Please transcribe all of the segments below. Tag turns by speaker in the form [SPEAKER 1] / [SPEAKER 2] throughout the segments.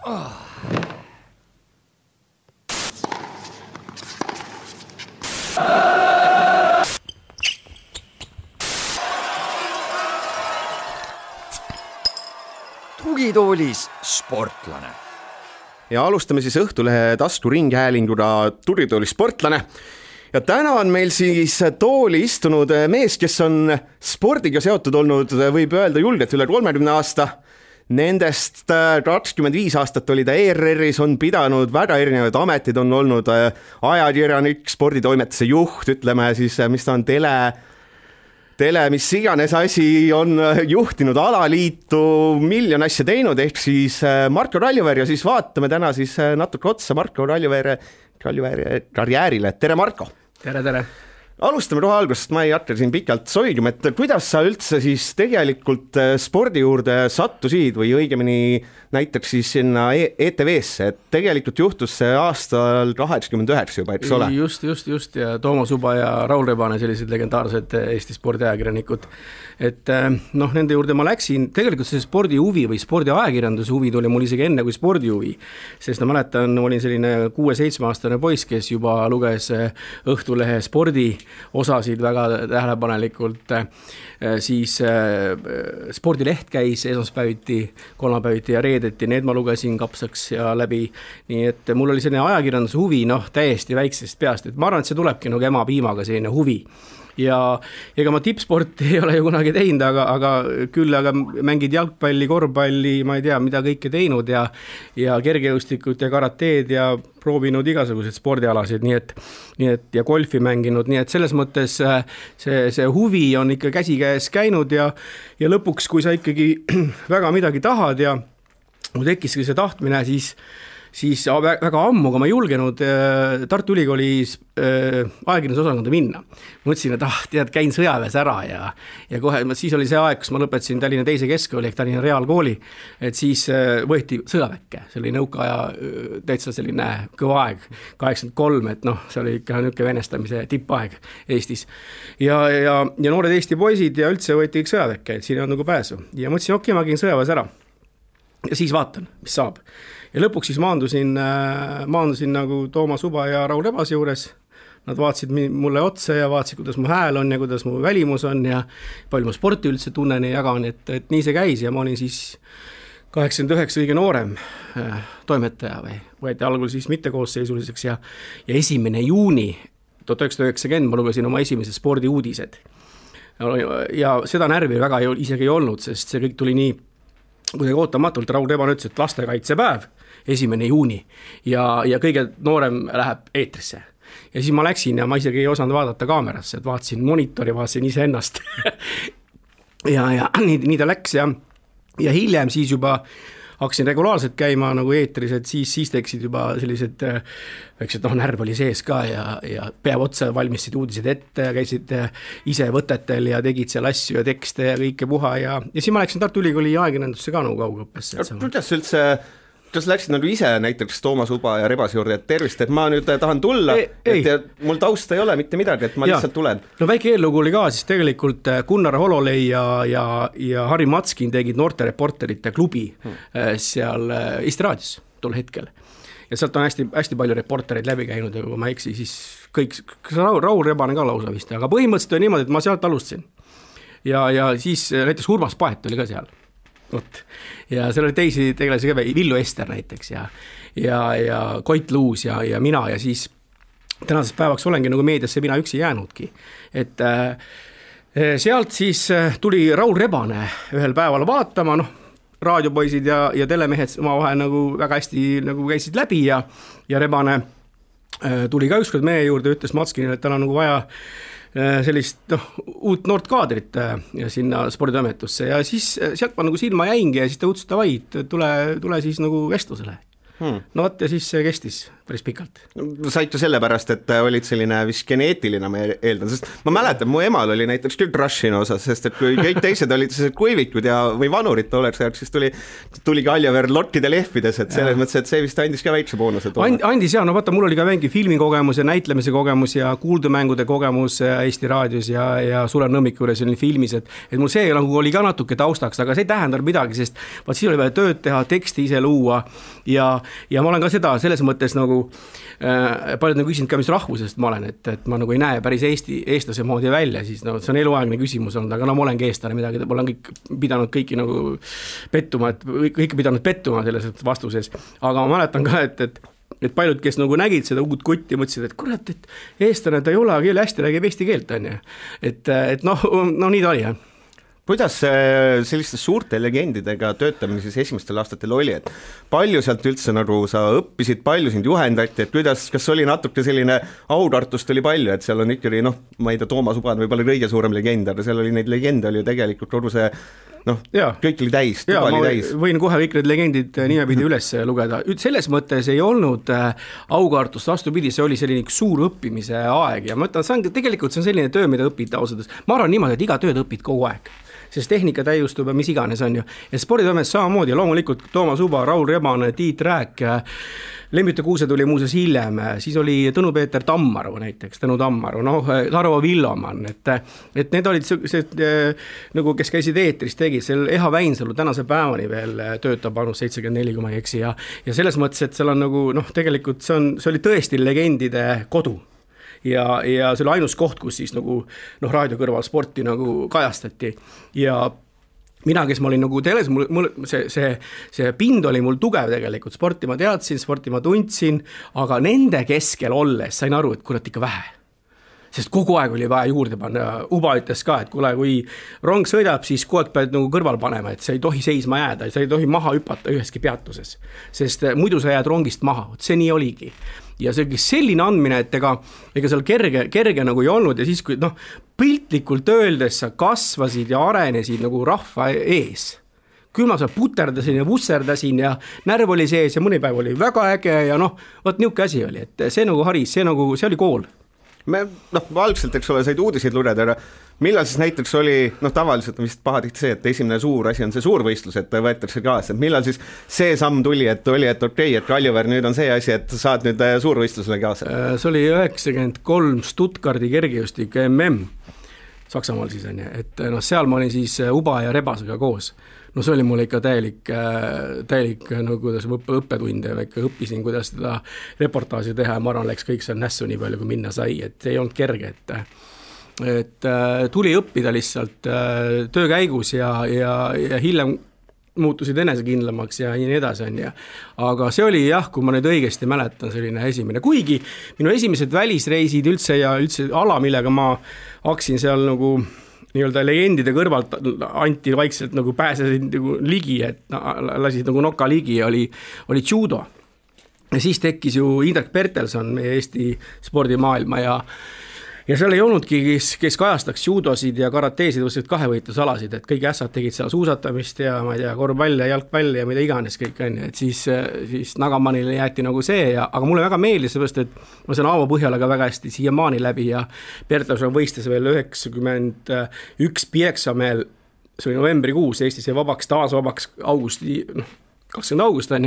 [SPEAKER 1] Tugitoolis sportlane.
[SPEAKER 2] Ja alustame siis Õhtulehe taskuringhäälinguna Tugitoolis sportlane. Ja täna on meil siis tooli istunud mees, kes on spordiga seotud olnud, võib öelda julgelt üle 30 aasta. Nendest 25 aastat oli ta ERR-is, on pidanud väga erinevaid ametid, on olnud ajakirjanik, sporditoimetuse juht, ütleme siis, mis ta on tele, mis iganes asi, on juhtinud alaliitu, miljon asja teinud, ehk siis Marko Raljuveer ja siis vaatame täna siis natuke otsa Marko Raljuveere karjäärile. Tere, Marko!
[SPEAKER 3] Tere!
[SPEAKER 2] Alustame kohe algusest, ma ei hakka siin pikalt soigima, et kuidas sa üldse siis tegelikult spordi juurde sattusid või õigemini näiteks siis sinna ETV-sse, et tegelikult juhtus see aastal 89 juba, eks ole?
[SPEAKER 3] Just ja Toomas Uba ja Raul Rebane, sellised legendaarsed Eesti spordiajakirjanikud. Et nende juurde ma läksin, tegelikult see spordi huvi või spordiajakirjanduse huvi tuli mul isegi enne kui spordi huvi, sest ma mäletan, olin selline 6-7-aastane poiss, kes juba luges Õhtulehe spordi osasid väga tähelepanelikult, siis spordileht käis esmaspäeviti, kolmapäeviti ja reedeti, need ma lugesin kapsaks ja läbi, nii et mul oli selline ajakirjanduse huvi, täiesti väiksest peast, et ma arvan, et see tulebki nagu ema piimaga selline huvi. Ja ega ma tippsporti ei ole ju kunagi teinud, aga mängid jalgpalli, korvpalli, ma ei tea, mida kõike teinud ja kergejõustikut ja karateed ja proovinud igasuguseid spordialasid, nii et ja golfi mänginud, nii et selles mõttes see huvi on ikka käsikäes käinud ja lõpuks, kui sa ikkagi väga midagi tahad ja mul tekkiski see tahtmine, siis väga ammu, kui ma julgenud Tartu Ülikoolis ajakirjandusosakonda minna. Mõtlesin, et käin sõjaväes ära ja kohe, siis oli see aeg, kus ma lõpetasin Tallinna teise keskkooli ehk Tallinna Reaalkooli, et siis võeti sõjaväkke, see oli nõukaaja täitsa selline kõva aeg, 83, et see oli ikka niuke venestamise tippaeg Eestis. Ja noored Eesti poisid ja üldse võeti kõik sõjaväkke, et siin on nagu pääsu. Ja mõtlesin, okei, ma käin sõjaväes ära ja siis vaatan, mis saab. Ja lõpuks siis maandusin nagu Toomas Uba ja Raul Rebase juures. Nad vaatasid mulle otsa ja vaatasid, kuidas mu hääl on ja kuidas mu välimus on ja palju ma sporti üldse tunnen ja jagan, et nii see käis ja ma olin siis 89 kõige noorem toimetaja või võeti algul siis mittekoosseisuliseks ja 1. juuni 1990 ma lugesin oma esimese spordiuudised. Ja seda närvi väga isegi ei olnud, sest see kõik tuli nii kuidagi ootamatult. Raul Rebane ütles, et lastekaitsepäev 1. juuni ja kõige noorem läheb eetrisse. Ja siis ma läksin ja ma isegi ei osanud vaadata kaamerasse, et vaatasin monitori, vaatasin ise ennast. ja nii ta läks ja hiljem siis juba hakkasin regulaarselt käima nagu eetris, et siis teksid juba sellised väiksed, närv oli sees ka ja päev otsa valmistasid uudised ette ja käisid ise võtetel ja tegid seal asju ja tekste ja kõike puha ja siis ma läksin Tartu Ülikooli ajakirjandusse ka nagu kaugõppesse.
[SPEAKER 2] Kuidas üldse, kas läksid nagu ise näiteks Toomas Uba ja Rebase juurde, et tervist, et ma nüüd tahan tulla, et mul tausta ei ole mitte midagi, et ma lihtsalt tulen?
[SPEAKER 3] Väike eellugu oli ka, siis tegelikult Gunnar Hololei ja Harri Matskin tegid noorte reporterite klubi seal Eesti Raadios tol hetkel. Ja sealt on hästi palju reportereid läbi käinud ja kui ma eksi, siis kõik, Raul Rebane ka lausa vist, aga põhimõtteliselt oli niimoodi, et ma sealt alustasin. Ja siis näiteks Urmas Paet oli ka seal. Ja seal oli teisi tegelasi ka, Villu Ester näiteks ja Koit Luus ja mina ja siis tänasest päevaks olengi nagu meediasse mina üksi jäänudki. Et sealt siis tuli Raul Rebane ühel päeval vaatama, raadiopoisid ja telemehed omavahel nagu väga hästi nagu käisid läbi ja Rebane tuli ka ükskord meie juurde, ütles Matskinile, et tal on nagu vaja sellist uut noort kaadrit sinna sporditoimetusse ja siis sealt ma nagu silma jäingi ja siis ta ütles, et tule siis nagu vestlusele. No vot ja siis see kestis päris pikalt.
[SPEAKER 2] Said ju sellepärast, et olid selline vist geneetiline, ma eeldan, sest ma mäletan, mu emal oli näiteks küll Rushini osas, sest et kui kõik teised olid kuivikud või vanurid tolleks ajaks, siis tuli Kaljaveer lottide lehvides, et selles mõttes, et see vist andis ka väikse boonuse.
[SPEAKER 3] Andis ja, no vaata, mul oli ka mingi filmikogemus ja näitlemise kogemus ja kuuldumängude kogemus Eesti raadios ja Sulev Nõmmiku juures oli filmis, et mul see nagu oli ka natuke taustaks, aga see ei tähendanud midagi, sest vaat siis oli vaja tööd teha, teksti ise luua ja ma olen ka seda selles mõttes nagu paljud nagu küsinud ka, mis rahvusest ma olen, et ma nagu ei näe päris eestlase moodi välja, siis no, see on eluaegne küsimus olnud, aga no ma olengi eestlane midagi, ma olen pidanud kõiki nagu pettuma, et kõike pidanud pettuma selles vastuses, aga ma mäletan ka, et paljud, kes nagu nägid seda uut kutti, mõtlesid, et kurat, et eestlane ta ei ole, aga hästi räägib eesti keelt, on ju. Et noh, nii ta oli, jah.
[SPEAKER 2] Kuidas selliste suurte legendidega töötamine siis esimestel aastatel oli, et palju sealt üldse nagu sa õppisid, palju sind juhendati, et kas oli natuke selline autartust oli palju, et seal on ikkagi, noh, ma ei tea, Toomas Uban võib-olla kõige suurem legend, aga seal oli neid legende oli ju tegelikult kogu see, noh, kõik oli täis, tuba oli täis.
[SPEAKER 3] Võin kohe kõik need legendid nimepidi üles lugeda. Selles mõttes ei olnud aukartust, vastupidi, see oli selline suur õppimise aeg ja ma ütlen, tegelikult see on selline töö, mida õpid ausalt. Ma arvan niimoodi, et iga tööd õpid kogu aeg. Sest tehnika täiustub ja mis iganes on ju. Ja sporditoimes samamoodi, loomulikult Toomas Uba, Raul Rebane, Tiit Rääk, Lembite Kuuse tuli muuseas hiljem, siis oli Tõnu-Peeter Tammaru näiteks, Tõnu Tammaru, Tarvo Villoman, et need olid sellised, nagu kes käisid eetris, tegid, seal Eha Väinsalu tänase päevani veel töötab vanus 74, kui ma ei eksi ja selles mõttes, et seal on nagu, tegelikult see oli tõesti legendide kodu. Ja see oli ainus koht, kus siis nagu raadio kõrval sporti nagu kajastati ja mina, kes ma olin nagu teles, see pind oli mul tugev tegelikult, sporti ma teadsin, sporti ma tundsin, aga nende keskel olles sain aru, et kurat ikka vähe. Sest kogu aeg oli vaja juurde panna. Uba ütles ka, et kui rong sõidab, siis kogu aeg pead nagu kõrval panema, et sa ei tohi seisma jääda, sa ei tohi maha hüpata üheski peatuses, sest muidu sa jääd rongist maha, see nii oligi. Ja see selline andmine, et ega seal kerge nagu ei olnud ja siis, kui piltlikult öeldes sa kasvasid ja arenesid nagu rahva ees. Küll ma seal puterdasin ja vusserdasin ja närv oli sees ja mõni päev oli väga äge ja võt niuke asi oli, et see nagu haris, see oli kool.
[SPEAKER 2] Me algselt, eks ole, said uudiseid lugeda, aga millal siis näiteks oli, tavaliselt on vist pahatihti see, et esimene suur asi on see suurvõistlus, et võetakse kaasa, et millal siis see samm tuli, et okei, et Kaljaveer nüüd on see asi, et saad nüüd suurvõistlusele kaasa? See
[SPEAKER 3] oli 93 Stuttgardi kergejõustik MM Saksamaal siis on, et seal ma olin siis Uba ja Rebasega koos. See oli mul ikka täielik kuidas õppetund ja ikka õppisin, kuidas seda reportaaži teha ja ma arvan, läks kõik seal nässu nii palju, kui minna sai, et ei olnud kerge, et tuli õppida lihtsalt töö käigus ja hiljem muutusid enesekindlamaks ja nii edasi on ja. Aga see oli jah, kui ma nüüd õigesti mäletan, selline esimene, kuigi minu esimesed välisreisid üldse ja üldse ala, millega ma hakkasin seal nagu nii-öelda legendide kõrvalt anti vaikselt nagu pääsesid nagu ligi, et lasid nagu noka ligi ja oli judo. Ja siis tekkis ju Indrek Bertelson meie Eesti spordimaailma ja seal ei olnudki, kes kajastaks judosid ja karateesid, võtsid kahevõitlusalasid, et kõik ässad tegid seal suusatamist ja ma ei tea, korvpall ja jalgpall ja mida iganes kõik on, et siis Nagamanile jäeti nagu see aga mulle väga meeldis seepärast, et ma saan Aavo Põhjalaga väga hästi siiamaani läbi ja Bertelson võistes veel 91 Pieksameel, see oli novembrikuus, Eestis jäi taas vabaks augusti, 20 august on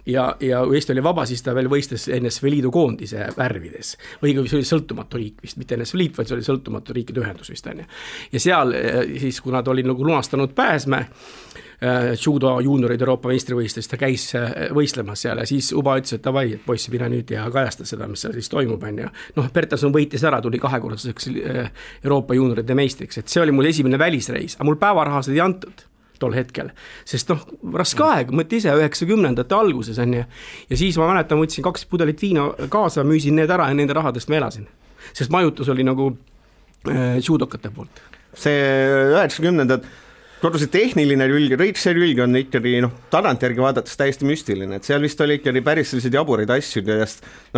[SPEAKER 3] ja Eesti oli vaba, siis ta veel võistes NSV Liidu koondise värvides. Või see oli sõltumatu riik vist, mitte NSV Liit, vaid see oli sõltumatu riikide ühendus vist on. Ja seal siis, kui nad olid nagu lunastanud pääsme, judo juuniorid Euroopa meistrivõistlust, ta käis võistlemas seal ja siis Uba ütles, et davai, et poissi pina nüüd ja kajasta seda, mis seal siis toimub on ja Bertelson võitis ära, tuli kahekordseks Euroopa juunioride meistriks, et see oli mul esimene välisreis, aga mul päevarahased ei antud tol hetkel, sest raske aeg, mõtte ise 90ndate alguses on ja siis ma mäletan, võtsin 2 pudelit viina kaasa, müüsin need ära ja nende rahadest ma elasin, sest majutus oli nagu judokate poolt.
[SPEAKER 2] See 90ndad kodu see tehniline külg, kõik see külg on ikkagi tagantjärgi vaadates täiesti müstiline, et seal vist oli ikkagi päris sellised jaburid asjud ja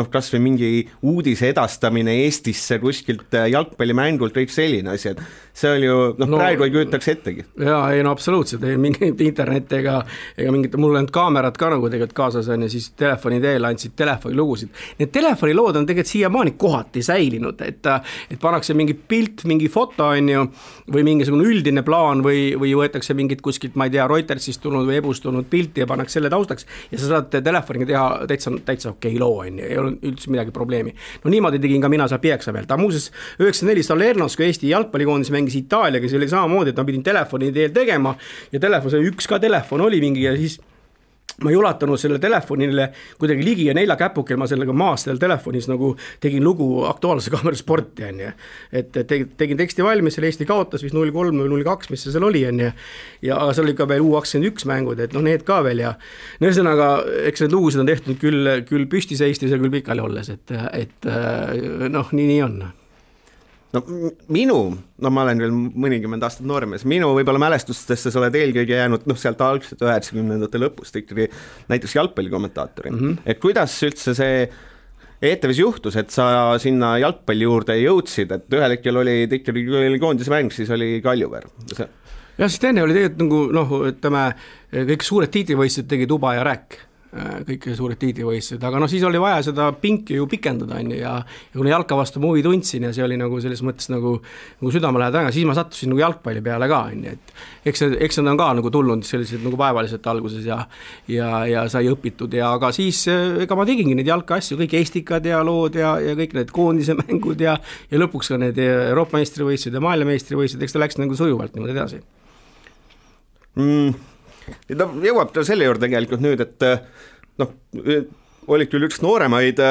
[SPEAKER 2] kas või mingi uudise edastamine Eestisse kuskilt jalgpallimängult, kõik selline asi, et see oli ju, praegu ei kujutaks ettegi.
[SPEAKER 3] Jaa, ei absoluutselt, ei mingit internet ega mingit, mul on kaamerad ka nagu tegelikult kaasas on ja siis telefoni teel andsid telefonilugusid. Need telefonilood on tegelikult siiamaani kohati säilinud, et pannakse mingi pilt, mingi foto on ju, või mingisugune üldine plaan või võetakse mingit kuskilt, ma ei tea, Reutersist tulnud või Ebust tulnud pilti ja pannakse selle taustaks ja sa saad telefoniga teha täitsa okei loo, on ju, ei ole üldse midagi probleemi. No niimoodi tegin ka mina seal Pieksa peal. Ta muuses 94 Salernos, kui Eesti jalgpallikoondis mängis Itaaliaga, see oli samamoodi, et ma pidin telefoni teel tegema ja üks ka telefon oli mingi ja siis ma ei ulatanud selle telefonile kuidagi ligi ja 4 käpukel ma sellega maas seal telefonis nagu tegin lugu Aktuaalse Kaamera Sporti, on ju. Et tegin teksti valmis, selle Eesti kaotas vist 0-3 või 0-2, mis see seal oli, on ju. Ja seal oli ka veel U21 mängud, et need ka veel ja ühesõnaga, eks need lugusid on tehtud küll püsti seistes ja küll pikali olles, et nii on.
[SPEAKER 2] Ma olen veel mõnikümmend aastat noormees, minu võib-olla mälestustesse sa oled eelkõige jäänud sealt algselt 90-ndate lõpust ikkagi näiteks jalgpallikommentaatori. Et kuidas üldse see ETV-s juhtus, et sa sinna jalgpalli juurde jõudsid, et ühel hetkel oli koondise mäng, siis oli Kaljuveer.
[SPEAKER 3] Ja siis enne oli tegelikult kõik suured tiitlivõistlused tegi Tuba ja Rääk. Kõik suured tiitlivõistlused, aga siis oli vaja seda pinki ju pikendada ja kuna jalka vastu ma huvi tundsin ja see oli nagu selles mõttes nagu südamelähedane, siis ma sattusin nagu jalgpalli peale ka, et eks nad on ka nagu tulnud sellised nagu vaevaliselt alguses ja sai õpitud ja aga siis ega ma tegingi neid jalkaasju, kõik Eestikad ja lood ja kõik need koondise mängud ja lõpuks ka need Euroopa meistrivõistlused ja maailmameistrivõistlused, eks ta läks nagu sujuvalt niimoodi edasi.
[SPEAKER 2] Jõuab ta selle juurde tegelikult nüüd, et olid küll üks nooremaid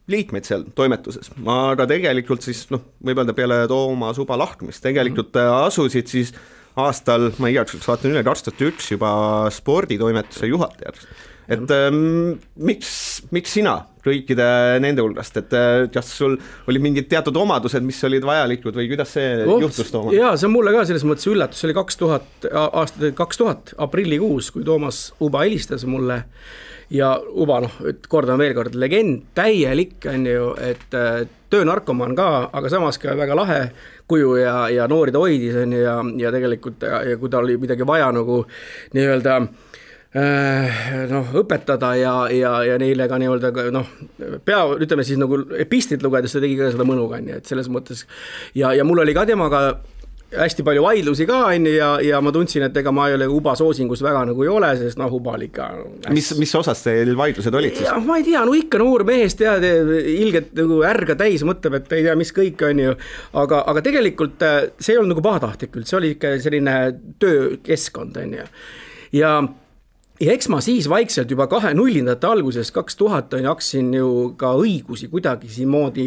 [SPEAKER 2] liikmeid seal toimetuses, aga tegelikult siis võib öelda peale Tooma Suba lahkumist, tegelikult asusid siis aastal, ma igaüks vaatan üle, 2001 juba sporditoimetuse juhatajaks. Et miks sina kõikide nende hulgast, et kas sul oli mingid teatud omadused, mis olid vajalikud või kuidas see juhtus Tooma?
[SPEAKER 3] Jaa, see on mulle ka selles mõttes üllatus, see oli 2000 aprillikuus, kui Toomas Uba helistas mulle ja Uba, kordan veel kord, legend, täielik on ju, et töönarkomaan ka, aga samas ka väga lahe kuju ja noori ta hoidis on ju ja tegelikult ja kui ta oli midagi vaja nagu nii-öelda õpetada ja neile ka nii-öelda ütleme siis nagu epistlit lugedes ta tegi ka seda mõnuga, et selles mõttes ja mul oli ka temaga hästi palju vaidlusi ka ja ma tundsin, et ega ma ei ole Uba soosingus väga nagu ei ole, sest Uba oli ikka
[SPEAKER 2] mis osas teil vaidlused olid siis?
[SPEAKER 3] Ma ei tea, ikka noor mees tead, ilgelt nagu ärga täis mõtleb, et ei tea, mis kõik on ju, aga tegelikult see ei olnud nagu pahatahtlik küll, see oli ikka selline töökeskkond on ju ja eks ma siis vaikselt juba 2000-ndate alguses 2000 hakkasin ju ka õigusi kuidagi siin moodi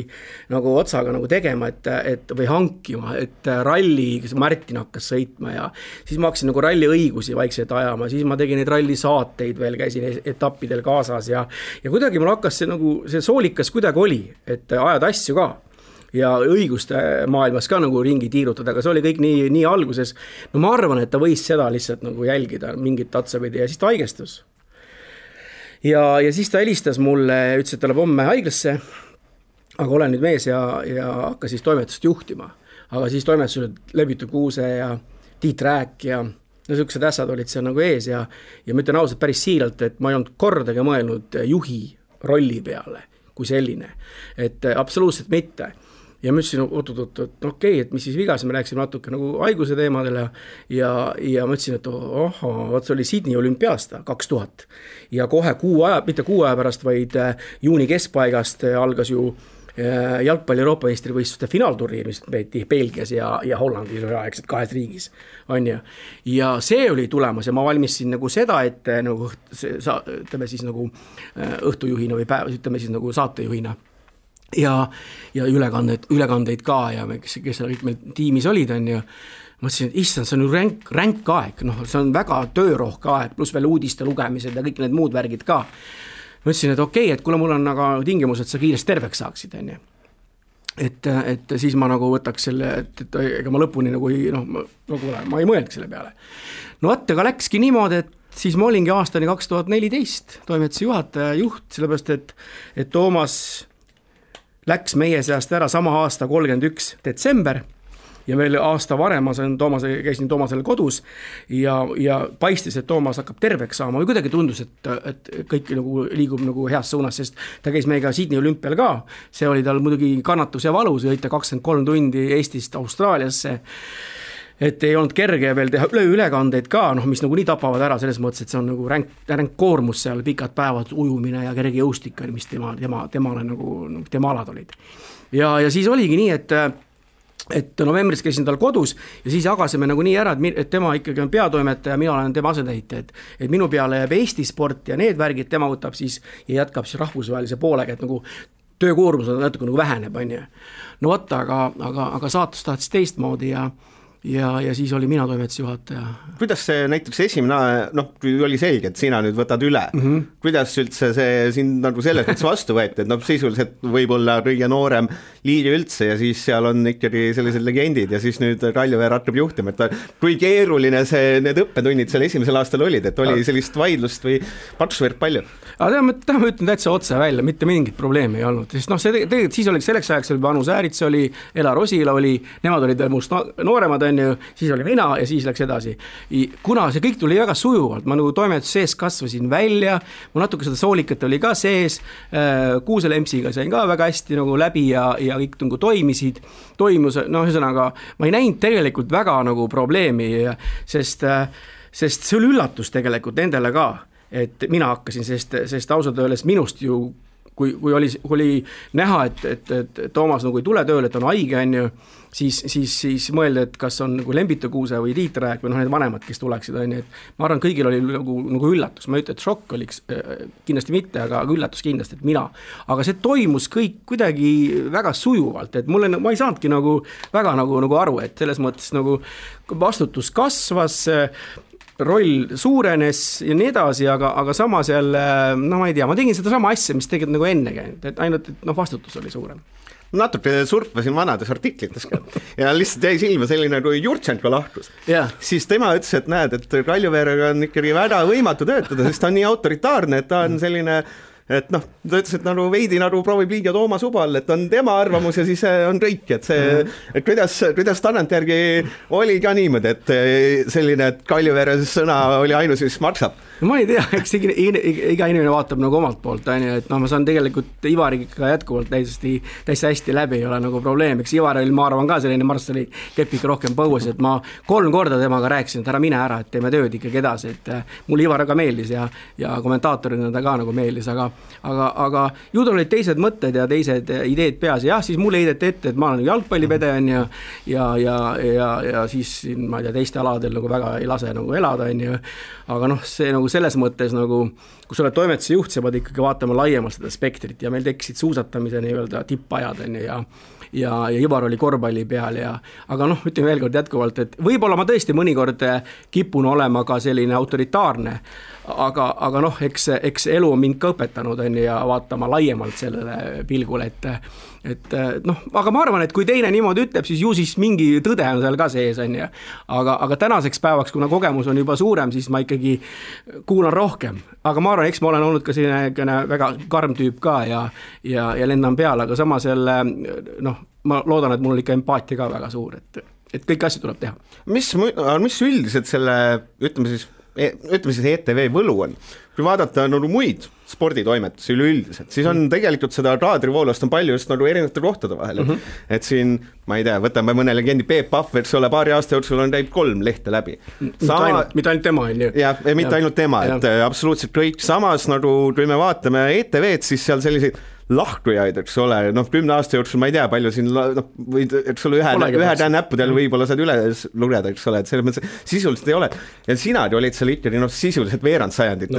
[SPEAKER 3] nagu otsaga nagu tegema, et või hankima, et ralli, Martin hakkas sõitma ja siis ma hakkasin nagu ralli õigusi vaikselt ajama, siis ma tegin neid ralli saateid veel, käisin etappidel kaasas ja kuidagi mul hakkas see soolikas kuidagi oli, et ajad asju ka. Ja õiguste maailmas ka nagu ringi tiirutada, aga see oli kõik nii alguses. Ma arvan, et ta võis seda lihtsalt nagu jälgida mingit tatsapidi ja siis ta haigestus. Ja siis ta helistas mulle, ütles, et ta läheb homme haiglasse, aga olen nüüd mees ja hakkas siis toimetust juhtima. Aga siis toimetused Lebitu Kuuse ja Tiit Rääk ja sellised ässad olid seal nagu ees ja ma ütlen ausalt päris siiralt, et ma ei olnud kordagi mõelnud juhi rolli peale kui selline, et absoluutselt mitte. Ja ma ütlesin, okei, et mis siis vigas, me rääksime natuke nagu haiguse teemadele ja ma ütlesin, et see oli Sydney olümpiaasta 2000 ja kohe mitte kuu aja pärast, vaid juuni keskpaigast algas ju jalgpalli Euroopa meistrivõistluste finaalturniir, mis peeti Belgias ja Hollandis aegselt 2 riigis on ju. Ja see oli tulemas ja ma valmisin nagu seda, et nagu, ütleme siis nagu õhtujuhina või ütleme siis nagu saatejuhina ja ülekandeid ka ja kes kõik meil tiimis olid on ju. Ma ütlesin, et issand, see on ju ränk aeg, see on väga töörohke aeg, pluss veel uudiste lugemised ja kõik need muud värgid ka. Ma ütlesin, et okei, et kuule mul on aga tingimus, et sa kiiresti terveks saaksid on ju. et siis ma nagu võtaks selle, et ega ma lõpuni nagu ma ei mõelnud selle peale. No vaata, aga läkski niimoodi, et siis ma olingi aastani 2014 toimetuse juhataja juht, sellepärast et Toomas läks meie seast ära sama aasta 31. detsember ja veel aasta varem ma käisin Toomasele kodus ja paistis, et Toomas hakkab terveks saama või kuidagi tundus, et kõik nagu liigub nagu heas suunas, sest ta käis meiega Sydney olümpial ka, see oli tal muidugi kannatus ja valus, sõita 23 tundi Eestist Austraaliasse, et ei olnud kerge ja veel teha ülekandeid ka, mis nagu nii tapavad ära selles mõttes, et see on nagu ränk koormus seal, pikad päevad, ujumine ja kerge jõustik, mis temale nagu tema alad olid. Ja siis oligi nii, et novembris käisin tal kodus ja siis jagasime nagu nii ära, et tema ikkagi on peatoimetaja, mina olen tema asendaja, et minu peale jääb Eesti sport ja need värgid tema võtab siis ja jätkab siis rahvusvahelise poolega, et nagu töökoormus on natuke nagu väheneb, on ju. No võtta, aga saatus tahtis teistmoodi ja siis oli mina toimetuse juhataja.
[SPEAKER 2] Kuidas see näiteks esimene, kui oli selge, et sina nüüd võtad üle, kuidas üldse see sind nagu selles mõttes vastu võeti, et sisuliselt võib-olla kõige noorem liige üldse ja siis seal on ikkagi sellised legendid ja siis nüüd Kaljuveer hakkab juhtima, et kui keeruline need õppetunnid seal esimesel aastal olid, et oli sellist vaidlust või paksuvõrd palju?
[SPEAKER 3] Aga ma ütlen täitsa otse välja, mitte mingit probleemi ei olnud, sest tegelikult siis oli selleks ajaks oli Anu Säärits oli, Elar Osila oli, nemad olid must nooremad, siis oli mina ja siis läks edasi. Kuna see kõik tuli väga sujuvalt, ma nagu toimetus sees kasvasin välja, mul natuke seda soolikat oli ka sees, Kuusel Emsiga sain ka väga hästi nagu läbi ja kõik nagu toimus, ühesõnaga, ma ei näinud tegelikult väga nagu probleemi, sest see oli üllatus tegelikult nendele ka, et mina hakkasin, sest ausalt öeldes minust ju, kui oli näha, et Toomas nagu ei tule tööle, et on haige, on ju, siis mõelda, et kas on nagu Lembito Kuuse või Tiit Rääk või need vanemad, kes tuleksid, on ju, et ma arvan, kõigil oli nagu üllatus, ma ei ütle, et šokk oliks kindlasti mitte, aga üllatus kindlasti, et mina, aga see toimus kõik kuidagi väga sujuvalt, et ma ei saanudki nagu väga nagu aru, et selles mõttes nagu vastutus kasvas, roll suurenes ja nii edasi, aga samas jälle, ma ei tea, ma tegin seda sama asja, mis tegelikult nagu enne käinud, et ainult, et vastutus oli suurem.
[SPEAKER 2] Natuke surfasin vanades artiklites ka ja lihtsalt jäi silma selline, kui Jurtšenko lahkus, siis tema ütles, et näed, et Kaljuveerega on ikkagi väga võimatu töötada, sest ta on nii autoritaarne, et ta on selline et ta ütles, et nagu veidi nagu proovib liiga Toomas Ubal, et on tema arvamus ja siis on kõik, et see, et kuidas tagantjärgi oli ka niimoodi, et selline, et Kaljuveere sõna oli ainus, mis maksab.
[SPEAKER 3] No ma ei tea, eks iga inimene vaatab nagu omalt poolt, et ma saan tegelikult Ivariga jätkuvalt täiesti hästi läbi, ei ole nagu probleem, eks Ivaril ma arvan ka selline Marssali kepik rohkem põues, et ma 3 korda temaga rääkisin, et ära mine ära, et teeme tööd ikkagi edasi, et mul Ivar ka meeldis ja kommentaatorina ta ka nagu meeldis, aga ju tal olid teised mõtted ja teised ideed peas ja siis mulle heideti ette, et ma olen jalgpallipede ja siis ma ei tea, teiste aladel nagu väga ei lase nagu elada, aga see nagu selles mõttes nagu, kui sa oled toimetuse juht, sa pead ikkagi vaatama laiemalt seda spektrit ja meil tekkisid suusatamise nii-öelda tippajad ja Ivar oli korvpalli peal aga ütleme veel kord jätkuvalt, et võib-olla ma tõesti mõnikord kipun olema ka selline autoritaarne, aga eks elu on mind ka õpetanud ja vaatama laiemalt sellele pilgule, aga ma arvan, et kui teine niimoodi ütleb, siis ju siis mingi tõde on seal ka sees, aga tänaseks päevaks, kuna kogemus on juba suurem, siis ma ikkagi kuulan rohkem, aga ma arvan, eks ma olen olnud ka selline väga karm tüüp ka ja lendan peale, aga samas jälle, ma loodan, et mul on ikka empaatia ka väga suur, et kõik asju tuleb teha.
[SPEAKER 2] Mis üldiselt selle, ütleme siis ETV võlu on, kui vaadata muid sporditoimetusi üleüldiselt, siis on tegelikult seda raadrivoolast on palju just erinevate kohtade vahel, et siin, ma ei tea, võtame mõne legendi Peep Pahv, eks ole, paari aasta jooksul on käib 3 lehte läbi.
[SPEAKER 3] Mitte ainult tema, on ju.
[SPEAKER 2] Jah, mitte ainult tema, et absoluutselt kõik, samas kui me vaatame ETV-d, siis seal selliseid lahkujaid, eks ole, 10 aasta jooksul ma ei tea, palju siin, eks ole, ühe näppudel võib-olla saad üles lugeda, eks ole, et selles mõttes sisuliselt ei ole. Ja sina olid seal ikkagi sisuliselt veerand sajandit,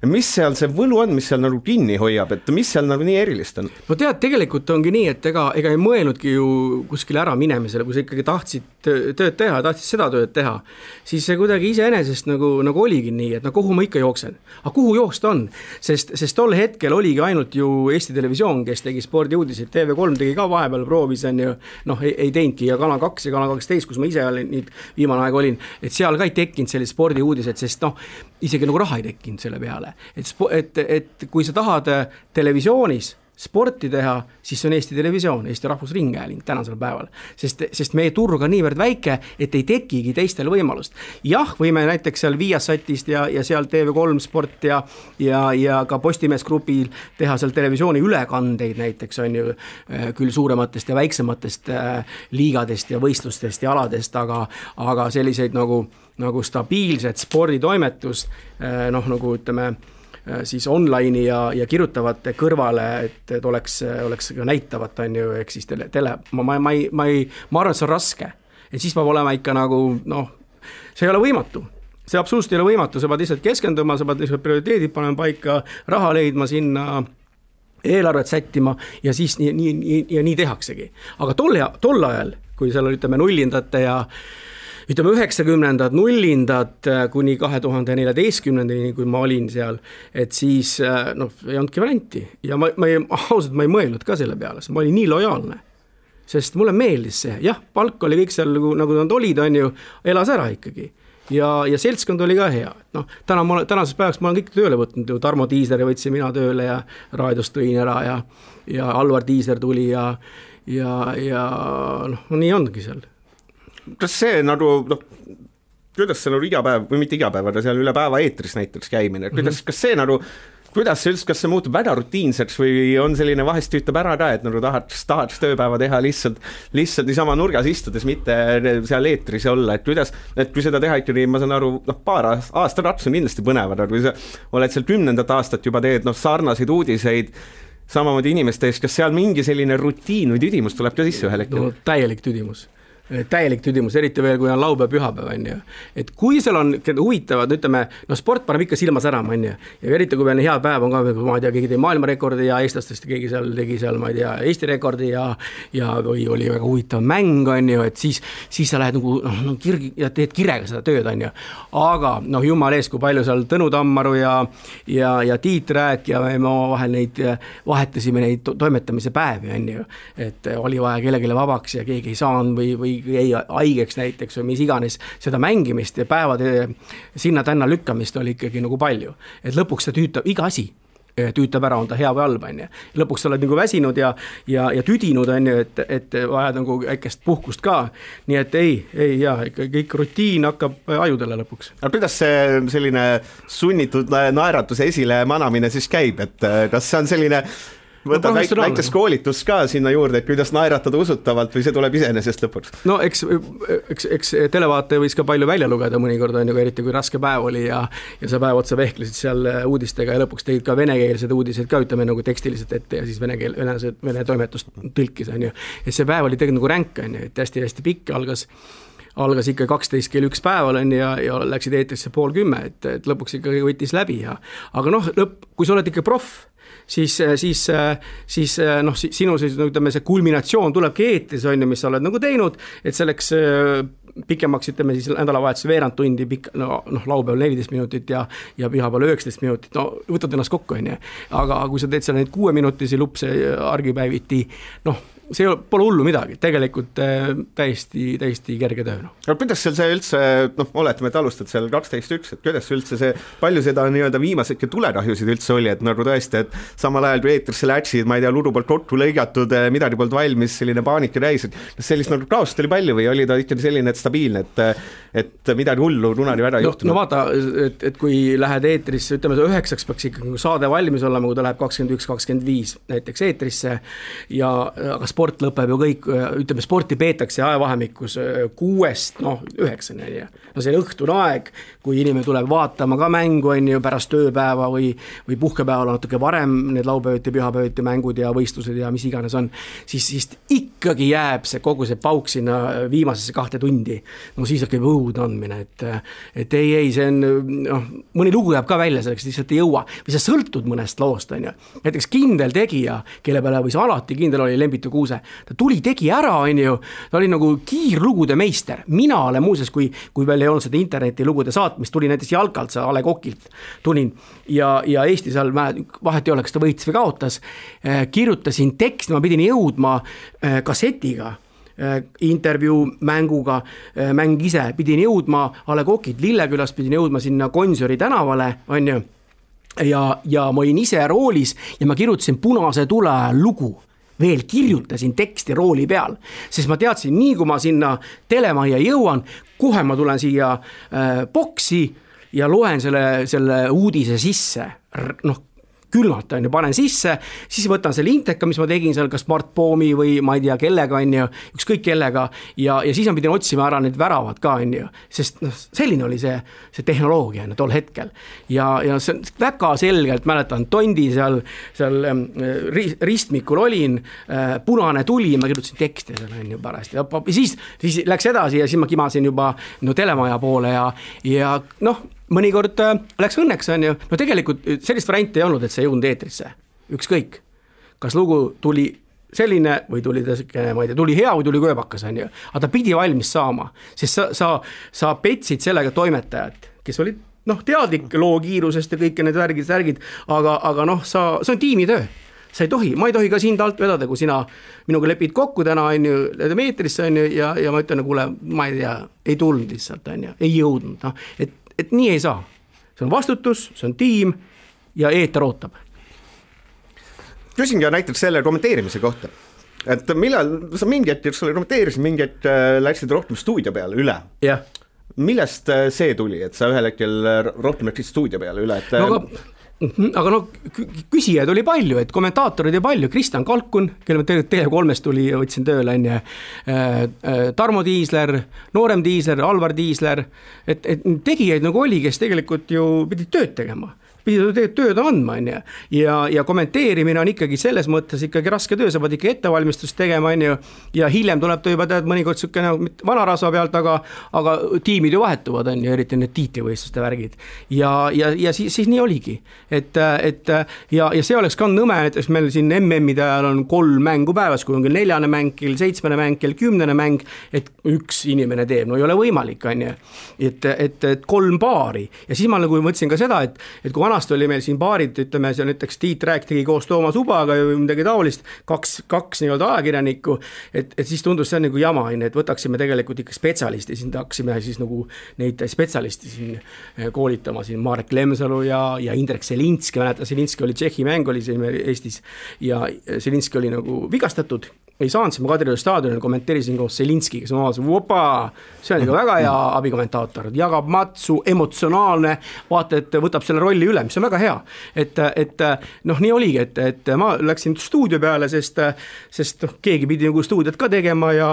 [SPEAKER 2] mis seal see võlu on, mis seal nagu kinni hoiab, et mis seal nagu nii erilist on?
[SPEAKER 3] No tead, tegelikult ongi nii, et ega ei mõelnudki ju kuskile ära minemisele, kui sa ikkagi tahtsid tööd teha, tahtsid seda tööd teha, siis see kuidagi iseenesest nagu oligi nii, et no kuhu ma ikka jooksen. Aga kuhu jooksta on? Sest tol hetkel oligi ainult ju Eesti Televisioon, kes tegi spordiuudiseid, TV3 tegi ka vahepeal proovis, on ju, noh, ei teinudki ja Kanal 2 ja Kanal 12, kus ma ise olin, viimane aeg olin, et seal ka ei tekkinud sellised spordiuudised, sest noh, isegi nagu raha ei tekkinud selle peale. Et kui sa tahad televisioonis sporti teha, siis see on Eesti Televisioon, Eesti Rahvusringhääling tänasel päeval, sest meie turg on niivõrd väike, et ei tekigi teistel võimalust. Jah, võime näiteks seal Viasatist ja seal TV3 sport ja ka Postimees grupil teha seal televisiooni ülekandeid näiteks on ju küll suurematest ja väiksematest liigadest ja võistlustest ja aladest, aga selliseid nagu stabiilset sporditoimetust, noh nagu ütleme, siis online ja kirjutavate kõrvale, et oleks ka näitavat, on ju, ehk siis ma arvan, et see on raske. Et siis peab olema ikka nagu, noh, see ei ole võimatu. See absoluutselt ei ole võimatu, sa pead lihtsalt keskenduma, sa pead lihtsalt prioriteedid panema paika, raha leidma sinna, eelarvet sättima ja siis nii tehaksegi. Aga tol ajal, kui seal oli, ütleme, nullindate ja ütleme 90-ndad, nullindad kuni 2014-ndani, kui ma olin seal, et siis noh, ei olnudki varianti. Ja ausalt ma ei mõelnud ka selle peale, sest ma olin nii lojaalne. Sest mulle meeldis see. Jah, palk oli kõik seal, nagu nad olid, on ju, elas ära ikkagi. Ja seltskond oli ka hea. No, tänases päevaks ma olen kõik tööle võtnud. Tarmo Tiisleri võtsin mina tööle ja raadiost tõin ära ja Alvar Tiisler tuli ja noh, nii ongi seal.
[SPEAKER 2] Kas see nagu, noh, kuidas see nagu igapäev, või mitte igapäev, aga seal üle päeva eetris näiteks käimine, kas see nagu, kas see muutub väga rutiinseks või on selline vahest tüütab ära ka, et nagu tahaks tööpäeva teha lihtsalt niisama nurgas istudes, mitte seal eetris olla, et kui seda teha ikkagi, ma saan aru, noh, paar aastarats on kindlasti põnevad, aga kui sa oled seal 10. aastat juba teed, noh, sarnaseid uudiseid, samamoodi inimeste eest, kas seal mingi selline rutiin või tüdimus tuleb ka sisse ühel hetkel?
[SPEAKER 3] No, täielik tüdimus, eriti veel, kui on laupäev, pühapäev, on ju. Et kui seal on huvitavad, ütleme, no sport paneb ikka silma särama, on ju. Ja eriti, kui veel hea päev on ka, ma ei tea, keegi tegi maailmarekordi ja eestlastest keegi seal tegi seal, ma ei tea, Eesti rekordi ja või oli väga huvitav mäng, on ju, et siis sa lähed nagu, no, ja teed kirega seda tööd, on ju. Aga, noh, jumal ees, kui palju seal Tõnu Tammaru ja Tiit Rääk ja me vahel vahetasime neid toimetamise päevi, on ju. Et oli vaja kellegile vabaks ja keegi ei saanud või ei haigeks näiteks või mis iganes seda mängimist ja päevade sinna-tänna lükkamist oli ikkagi nagu palju. Et lõpuks see tüütab, iga asi tüütab ära, on ta hea või halb, on ju. Lõpuks sa oled nagu väsinud ja tüdinud, on ju, et vajad nagu äkest puhkust ka. Nii et kõik rutiin hakkab ajudele lõpuks.
[SPEAKER 2] Aga kuidas see selline sunnitud naeratuse esile manamine siis käib, et kas see on selline võtad väikest koolitus ka sinna juurde, et kuidas naeratada usutavalt või see tuleb iseenesest lõpuks?
[SPEAKER 3] No eks televaataja võis ka palju välja lugeda mõnikord, on ju, eriti kui raske päev oli ja sa päev otsa vehklesid seal uudistega ja lõpuks tegid ka venekeelsed uudised ka, ütleme nagu tekstiliselt ette ja siis vene toimetust tõlkis, on ju. Et see päev oli tegelikult nagu ränk, on ju, et hästi pikk algas ikka 12 kell 1 päeval on ja läksid eetrisse 9:30, et lõpuks ikka võttis läbi aga noh, kui sa oled ikka proff, siis noh, sinu ütleme, see kulminatsioon tulebki eetris, on ju, mis sa oled nagu teinud, et selleks pikemaks, ütleme siis nädalavahetus veerand tundi, laupäeval 14 minutit ja pühapäeval 19 minutit, no võtad ennast kokku, on ju. Aga kui sa teed seal neid 6-minutisi lupse argipäeviti, noh, see pole hullu midagi, tegelikult täiesti kerge töö.
[SPEAKER 2] Aga kuidas seal see üldse, noh, oletame, et alustad seal 12.1, et kuidas üldse see, palju seda nii-öelda viimasedki tuletahjusid üldse oli, et nagu tõesti, et samal ajal kui eetrisse läksid, ma ei tea, ludu poolt kokku lõigatud, midagi poolt valmis, selline paanika täis, et sellist nagu kaost oli palju või oli ta ikkagi selline, et stabiilne, et midagi hullu runari väga ei juhtunud?
[SPEAKER 3] No vaata, et kui lähed eetrisse, ütleme, 9 peaks ikkagi saade valmis olema, kui ta läheb 21-25 näiteks eetrisse aga sport lõpeb ju kõik, ütleme, sporti peetakse ajavahemikus 6, noh, 9, no see on õhtune aeg, kui inimene tuleb vaatama ka mängu, on ju, pärast tööpäeva või puhkepäeval natuke varem need laupäeviti, pühapäeviti mängud ja võistlused ja mis iganes on, siis ikkagi jääb see kogu see pauk sinna viimasesse 2 tundi mingi, no siis hakkab õud andmine, et ei, see on, noh, mõni lugu jääb ka välja selleks, lihtsalt ei jõua, või sa sõltud mõnest loost, on ju. Näiteks Kindel tegija, kelle peale võis alati kindel oli Lembitu Kuuse, ta tuli, tegi ära, on ju, ta oli nagu kiirlugude meister. Mina olen muuseas, kui veel ei olnud seda interneti lugude saatmist, tuli näiteks Jalkalt, A. Le Coqilt tulin ja Eesti seal vahet ei ole, kas ta võitis või kaotas, kirjutasin teksti, ma pidin jõudma kassetiga, intervjuu mänguga, mäng ise, pidin jõudma A. Le Coqilt Lillekülast, pidin jõudma sinna Gonsiori tänavale, on ju, ja ma olin ise roolis ja ma kirjutasin Punase tule ajal lugu, veel kirjutasin teksti rooli peal, sest ma teadsin, nii kui ma sinna telemajja jõuan, kohe ma tulen siia boksi ja loen selle uudise sisse, noh, külmalt on ju, panen sisse, siis võtan selle inteka, mis ma tegin seal, kas Mart Poomi või ma ei tea kellega on ju, ükskõik kellega ja siis ma pidin otsima ära need väravad ka on ju, sest noh, selline oli see tehnoloogia on ju, tol hetkel ja see väga selgelt mäletan, Tondi seal ristmikul olin, Punane tuli, ma kirjutasin tekste seal on ju pärast ja siis läks edasi ja siis ma kimasin juba no, telemaja poole ja noh, mõnikord läks õnneks, on ju, no tegelikult sellist varianti ei olnud, et see ei jõudnud eetrisse, ükskõik, kas lugu tuli selline või tuli ta, ma ei tea, tuli hea või tuli kööbakas, on ju, aga ta pidi valmis saama, sest sa petsid sellega toimetajat, kes olid, noh, teadlik loo kiirusest ja kõik need värgid, aga noh, see on tiimitöö, sa ei tohi, ma ei tohi ka sind alt vedada, kui sina minuga lepid kokku täna, on ju, meetrisse, on ju, ja ma ütlen, kuule, ma ei tea, ei tulnud lihtsalt, on ju, ei jõudnud, noh, et nii ei saa. See on vastutus, see on tiim ja eeter ootab.
[SPEAKER 2] Küsin ka näiteks selle kommenteerimise kohta, et millal sa mingi hetk kommenteerisid, mingi hetk läksid rohkem stuudio peale üle.
[SPEAKER 3] Jah.
[SPEAKER 2] Millest see tuli, et sa ühel hetkel rohkem läksid stuudio peale üle? Et...
[SPEAKER 3] No, aga no küsijaid oli palju, et kommentaatorid oli palju, Kristjan Kalkun, kelle TV3 tuli ja võtsin tööle, Tarmo Tiisler, Noorem Tiisler, Alvar Tiisler, et tegijaid nagu oli, kes tegelikult ju pidid tööd tegema. Pidid tööd andma, on ju, ja kommenteerimine on ikkagi selles mõttes ikkagi raske töö, sa pead ikka ettevalmistust tegema, on ju, ja hiljem tuleb ta juba tead mõnikord sükene vanarasva pealt, aga tiimid ju vahetuvad, on ju, eriti need tiitlivõistluste värgid, ja siis nii oligi, et see oleks ka nõme, et meil siin MM-ide ajal on 3 mängu päevas, kui on küll 4. mäng, kell 7. mäng, kell 10. mäng, et üks inimene teeb, no ei ole võimalik, on ju, et 3 paari, ja siis ma nagu mõtlesin ka seda, et kui vanasti oli meil siin paarid, ütleme, see näiteks Tiit Rääk tegi koos Toomas Ubaga või midagi taolist, kaks nii-öelda ajakirjanikku, et siis tundus see on nagu jama, et võtaksime tegelikult ikka spetsialisti, siin tahaksime siis nagu neid spetsialisti siin koolitama, siin Marek Lemsalu ja Indrek Selinski, mäletan, Selinski oli Tšehhi mäng, oli siin Eestis ja Selinski oli nagu vigastatud, ei saanud, siis ma Kadrioru staadionil kommenteerisin koos Selinski, kes ma vaatasin, see on ikka väga hea abikommentaator, jagab matsu, emotsionaalne, vaata, et võtab selle rolli üle, mis on väga hea, et noh, nii oligi, et ma läksin stuudio peale, sest keegi pidi nagu stuudiot ka tegema ja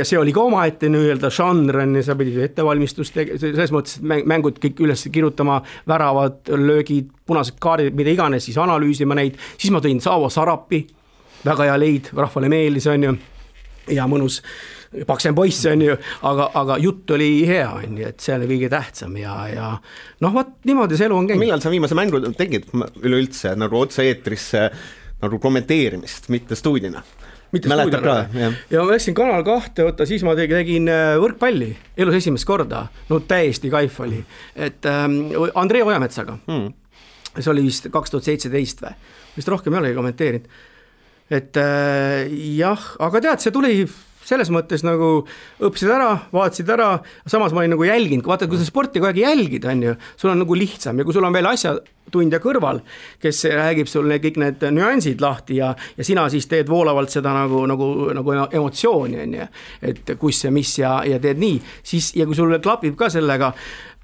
[SPEAKER 3] see oli ka omaette nii-öelda žanr, sa pidid ettevalmistust selles mõttes, et mängud kõik üles kirjutama, väravad, löögid, punased kaardid, mida iganes, siis analüüsima neid, siis ma tõin Saavo Sarapi, väga hea leid, rahvale meeldis, on ju, ja mõnus paksem poiss, on ju, aga jutt oli hea, on ju, et see oli kõige tähtsam ja noh, vaat niimoodi see elu on käinud.
[SPEAKER 2] Millal sa viimase mängu tegid üleüldse nagu otse-eetrisse nagu kommenteerimist, mitte stuudina? Mäletad ka?
[SPEAKER 3] Ja ma läksin Kanal 2, siis ma tegin võrkpalli, elus esimest korda, no täiesti kaif oli, et Andrei Ojametsaga, see oli vist 2017 või, vist rohkem ei olegi kommenteerinud. Et jah, aga tead, see tuli selles mõttes nagu õppisid ära, vaatasid ära, samas ma olin nagu jälginud, vaata, kui sa sporti kogu aeg jälgid, on ju, sul on nagu lihtsam ja kui sul on veel asjatundja kõrval, kes räägib sulle kõik need nüansid lahti ja sina siis teed voolavalt seda nagu emotsiooni, on ju, et kus ja mis ja teed nii, siis ja kui sul klapib ka sellega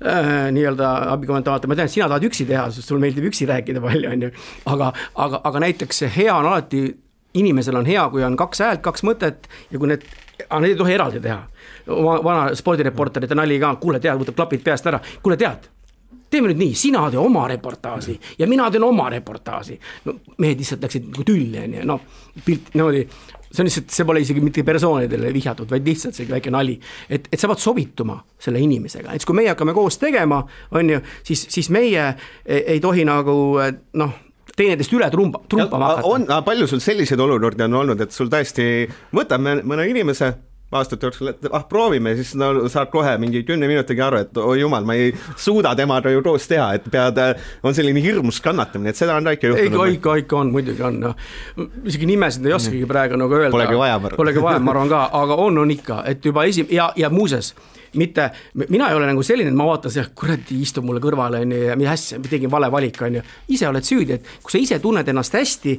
[SPEAKER 3] nii-öelda abikommentaator, ma tean, et sina tahad üksi teha, sest sul meeldib üksi rääkida palju, on ju, aga näiteks hea on alati inimesel on hea, kui on 2 häält, 2 mõtet ja kui need ei tohi eraldi teha. Vana spordireporterite nali ka, kuule tead, võtab klapid peast ära, kuule tead, teeme nüüd nii, sina tee oma reportaasi ja mina teen oma reportaasi. No, mehed lihtsalt läksid nagu tülli, no, pilt niimoodi, see on lihtsalt, see pole isegi mitte persoonidele vihjatud, vaid lihtsalt see väike nali, et sa pead sobituma selle inimesega, et kui meie hakkame koos tegema, on ju, siis meie ei tohi nagu teineteist üle trumpama hakata.
[SPEAKER 2] Palju sul selliseid olukordi on olnud, et sul tõesti võtame mõne inimese aastate jooksul, et proovime, siis saad kohe mingi 10 minutiga aru, et jumal, ma ei suuda temaga ju koos teha, et on selline hirmus kannatamine, et seda on ka ikka juhtunud.
[SPEAKER 3] Ikka on, muidugi on. Isegi nimesid ei oskagi praegu nagu öelda. Polegi vaja, ma arvan ka, aga on ikka, et juba ja muuses, mina ei ole nagu selline, et ma vaatan see, kuradi istub mulle kõrvale ja mis hästi, ma tegin vale valik, ise oled süüdi, et kui sa ise tunned ennast hästi,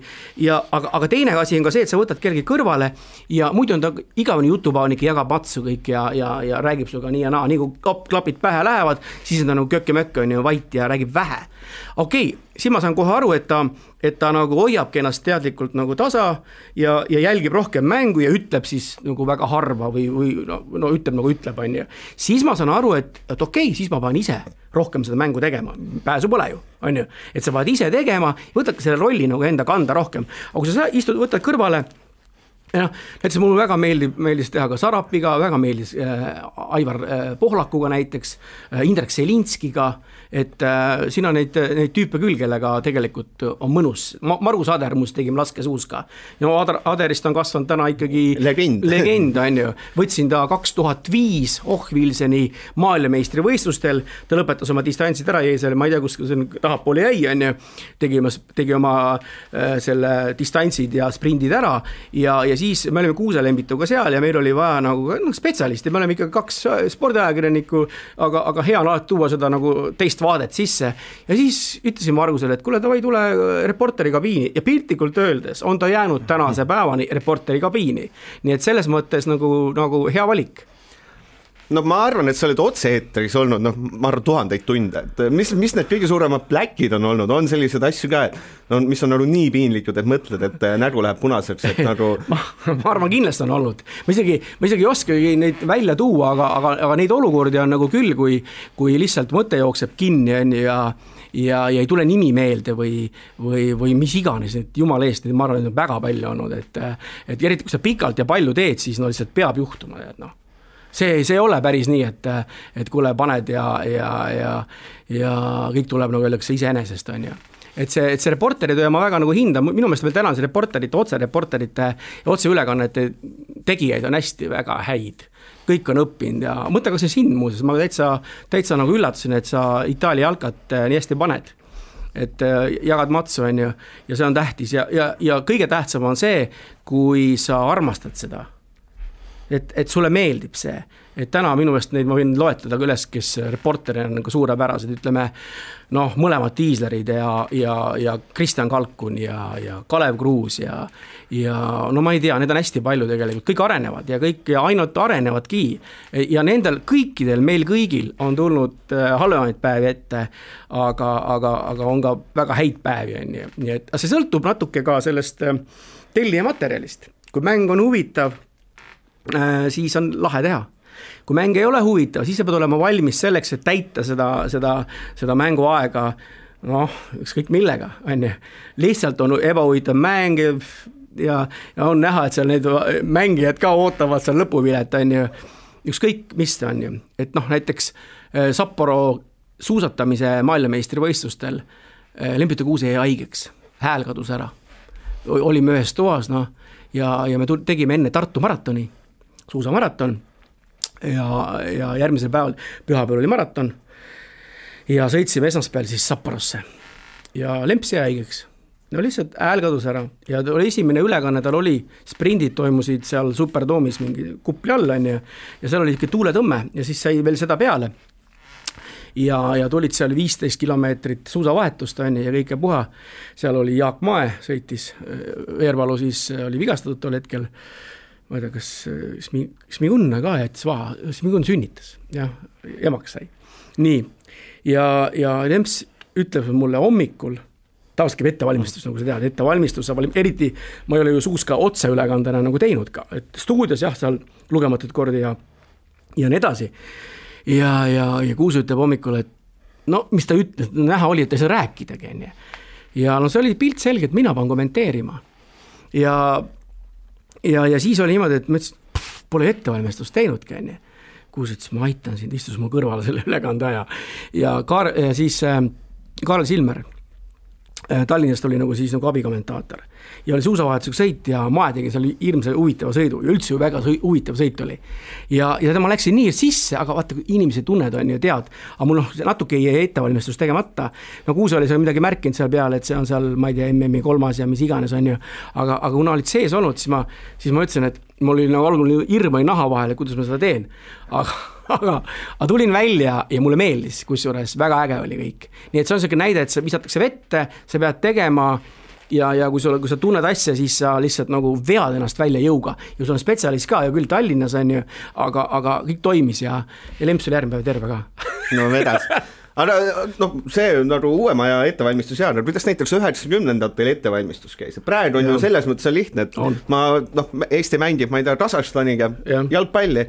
[SPEAKER 3] aga teine asi on ka see, et sa võtad kellegi kõrvale ja muidu on ta igavene jutupaanik, jagab matsu kõik ja räägib suga nii ja naa, nii kui klapid pähe lähevad, siis on ta nagu kökke-mökke on ju vait ja räägib vähe. Okei, siis ma saan kohe aru, et ta nagu hoiabki ennast teadlikult nagu tasa ja jälgib rohkem mängu ja ütleb siis nagu väga harva või ütleb nagu ütleb, on ju. Siis ma saan aru, et okei, siis ma pean ise rohkem seda mängu tegema, pääsu pole ju, on ju. Et sa pead ise tegema, võtadki selle rolli nagu enda kanda rohkem. Aga kui sa võtad kõrvale, näiteks mulle väga meeldis teha ka Sarapiga, väga meeldis Aivar Pohlakuga näiteks, Indrek Selinskiga, et siin on neid tüüpe küll, kellega tegelikult on mõnus. Margus Ader muust tegime laskesuuska. Ja Aderist on kasvanud täna ikkagi legend on ju. Võtsin ta 2005 Ohvilseni maailmameistri võistlustel, ta lõpetas oma distantsid ära, jäi selle, ma ei tea, kus tahapoole jäi, on ju. Tegi oma selle distantsid ja sprindid ära ja siis me olime Kuuselembituga seal ja meil oli vaja nagu spetsialisti, me oleme ikka 2 spordiajakirjanikku, aga hea on alati tuua seda nagu teist vaadet sisse ja siis ütlesin Margusele, et kuule, davai tule reporteri kabiini ja piltlikult öeldes on ta jäänud tänase päevani reporteri kabiini, nii et selles mõttes nagu hea valik.
[SPEAKER 2] No ma arvan, et sa oled otse-eetris olnud, ma arvan 1000 tunde, et mis need kõige suuremad pläkid on olnud, on sellised asju ka, et mis on nagu nii piinlikud, et mõtled, et nägu läheb punaseks, et nagu
[SPEAKER 3] ma arvan, kindlasti on olnud, ma isegi ei oskagi neid välja tuua, aga neid olukordi on nagu küll, kui lihtsalt mõte jookseb kinni ja ei tule nimi meelde või mis iganes, et jumala eest, ma arvan, et on väga palju olnud, et eriti kui sa pikalt ja palju teed, siis lihtsalt peab juhtuma, et see ei ole päris nii, et kuule paned ja kõik tuleb nagu öeldakse iseenesest, on ju. Et see reporteritöö ma väga nagu hinda, minu meelest veel tänan see otsereporterite ja otseülekannete tegijaid on hästi väga häid. Kõik on õppinud ja mõtle ka see sind muuses, ma täitsa nagu üllatasin, et sa Itaalia jalkat nii hästi paned. Et jagad matsu, on ju, ja see on tähtis ja kõige tähtsam on see, kui sa armastad seda. Et sulle meeldib see, et täna minu meelest neid ma võin loetleda üles, kes reporteri on nagu suurepärased, ütleme, mõlemad Tiislerid ja Kristjan Kalkun ja Kalev Kruus ja ma ei tea, need on hästi palju tegelikult, kõik arenevad ja ainult arenevadki ja nendel kõikidel, meil kõigil on tulnud halvemaid päevi ette, aga on ka väga häid päevi, nii et see sõltub natuke ka sellest tellija materjalist, kui mäng on huvitav, siis on lahe teha. Kui mäng ei ole huvitav, siis sa pead olema valmis selleks, et täita seda mänguaega, ükskõik millega, on ju. Lihtsalt on ebahuvitav mäng ja on näha, et seal need mängijad ka ootavad seal lõpuvilet, on ju. Ükskõik mis on ju. Et näiteks Sapporo suusatamise maailmameistri võistlustel Lembita Kuuse jäi haigeks, hääl kadus ära. Olime ühes toas, ja me tegime enne Tartu maratoni, suusamaraton ja järgmisel päeval, pühapäeval oli maraton ja sõitsime esmaspäeval siis Sapporosse ja Lemps jäi haigeks. Lihtsalt hääl kadus ära ja oli esimene ülekanne, tal oli, sprindid toimusid seal Superdoomis mingi kupli all on ja seal oli ikka tuuletõmme ja siis sai veel seda peale. Ja tulid seal 15 kilomeetrit suusavahetust on ja kõike puha. Seal oli Jaak Mae, sõitis, Veerpalu siis oli vigastatud tol hetkel. Ma ei tea, kas Smigunna ka jättis vaha, Smigun sünnitas ja emaks sai. Nii, ja Lemps ütleb mulle hommikul, tavaliselt käib ettevalmistus, nagu sa tead, ettevalmistus, eriti ma ei ole ju suuska otseülekandena nagu teinud ka, et stuudios jah, seal lugematud kordi ja nii edasi. Ja Kuus ütleb hommikul, et mis ta ütles, näha oli, et ei saa rääkidagi. Ja see oli pilt selge, et mina pean kommenteerima. Ja ja siis oli niimoodi, et ma ütlesin, pole ettevalmistust teinudki, onju. Kus ütles, ma aitan sind, istus mu kõrvale selle ülekande aja. Ja siis Kaarel Silmer Tallinnast oli nagu siis nagu abikommentaator ja oli suusavahetusega sõit ja ma tegin seal hirmsa huvitava sõidu ja üldse ju väga huvitav sõit oli. Ja ma läksin nii sisse, aga vaata, inimesi tunned on ja tead, aga mul natuke jäi ettevalmistus tegemata. No Kuuse oli seal midagi märkinud seal peale, et see on seal, ma ei tea, MM-i 3. ja mis iganes on ju, aga kuna olid sees olnud, siis ma ütlesin, et mul oli nagu algul hirm oli naha vahel, kuidas ma seda teen, aga tulin välja ja mulle meeldis, kusjuures väga äge oli kõik. Nii et see on selline näide, et sa visatakse vette, sa pead tegema ja kui sa tunned asja, siis sa lihtsalt nagu vead ennast välja jõuga. Ja sul on spetsialist ka ja küll Tallinnas on ju, aga kõik toimis ja Lemps oli järgmine päev terve ka.
[SPEAKER 2] No vedas. Aga see on nagu uuema ja ettevalmistus ja kuidas näiteks 90-ndatel ettevalmistus käis. Praegu on ju selles mõttes on lihtne, et Eesti mängib, ma ei tea, Kasahstaniga jalgpalli.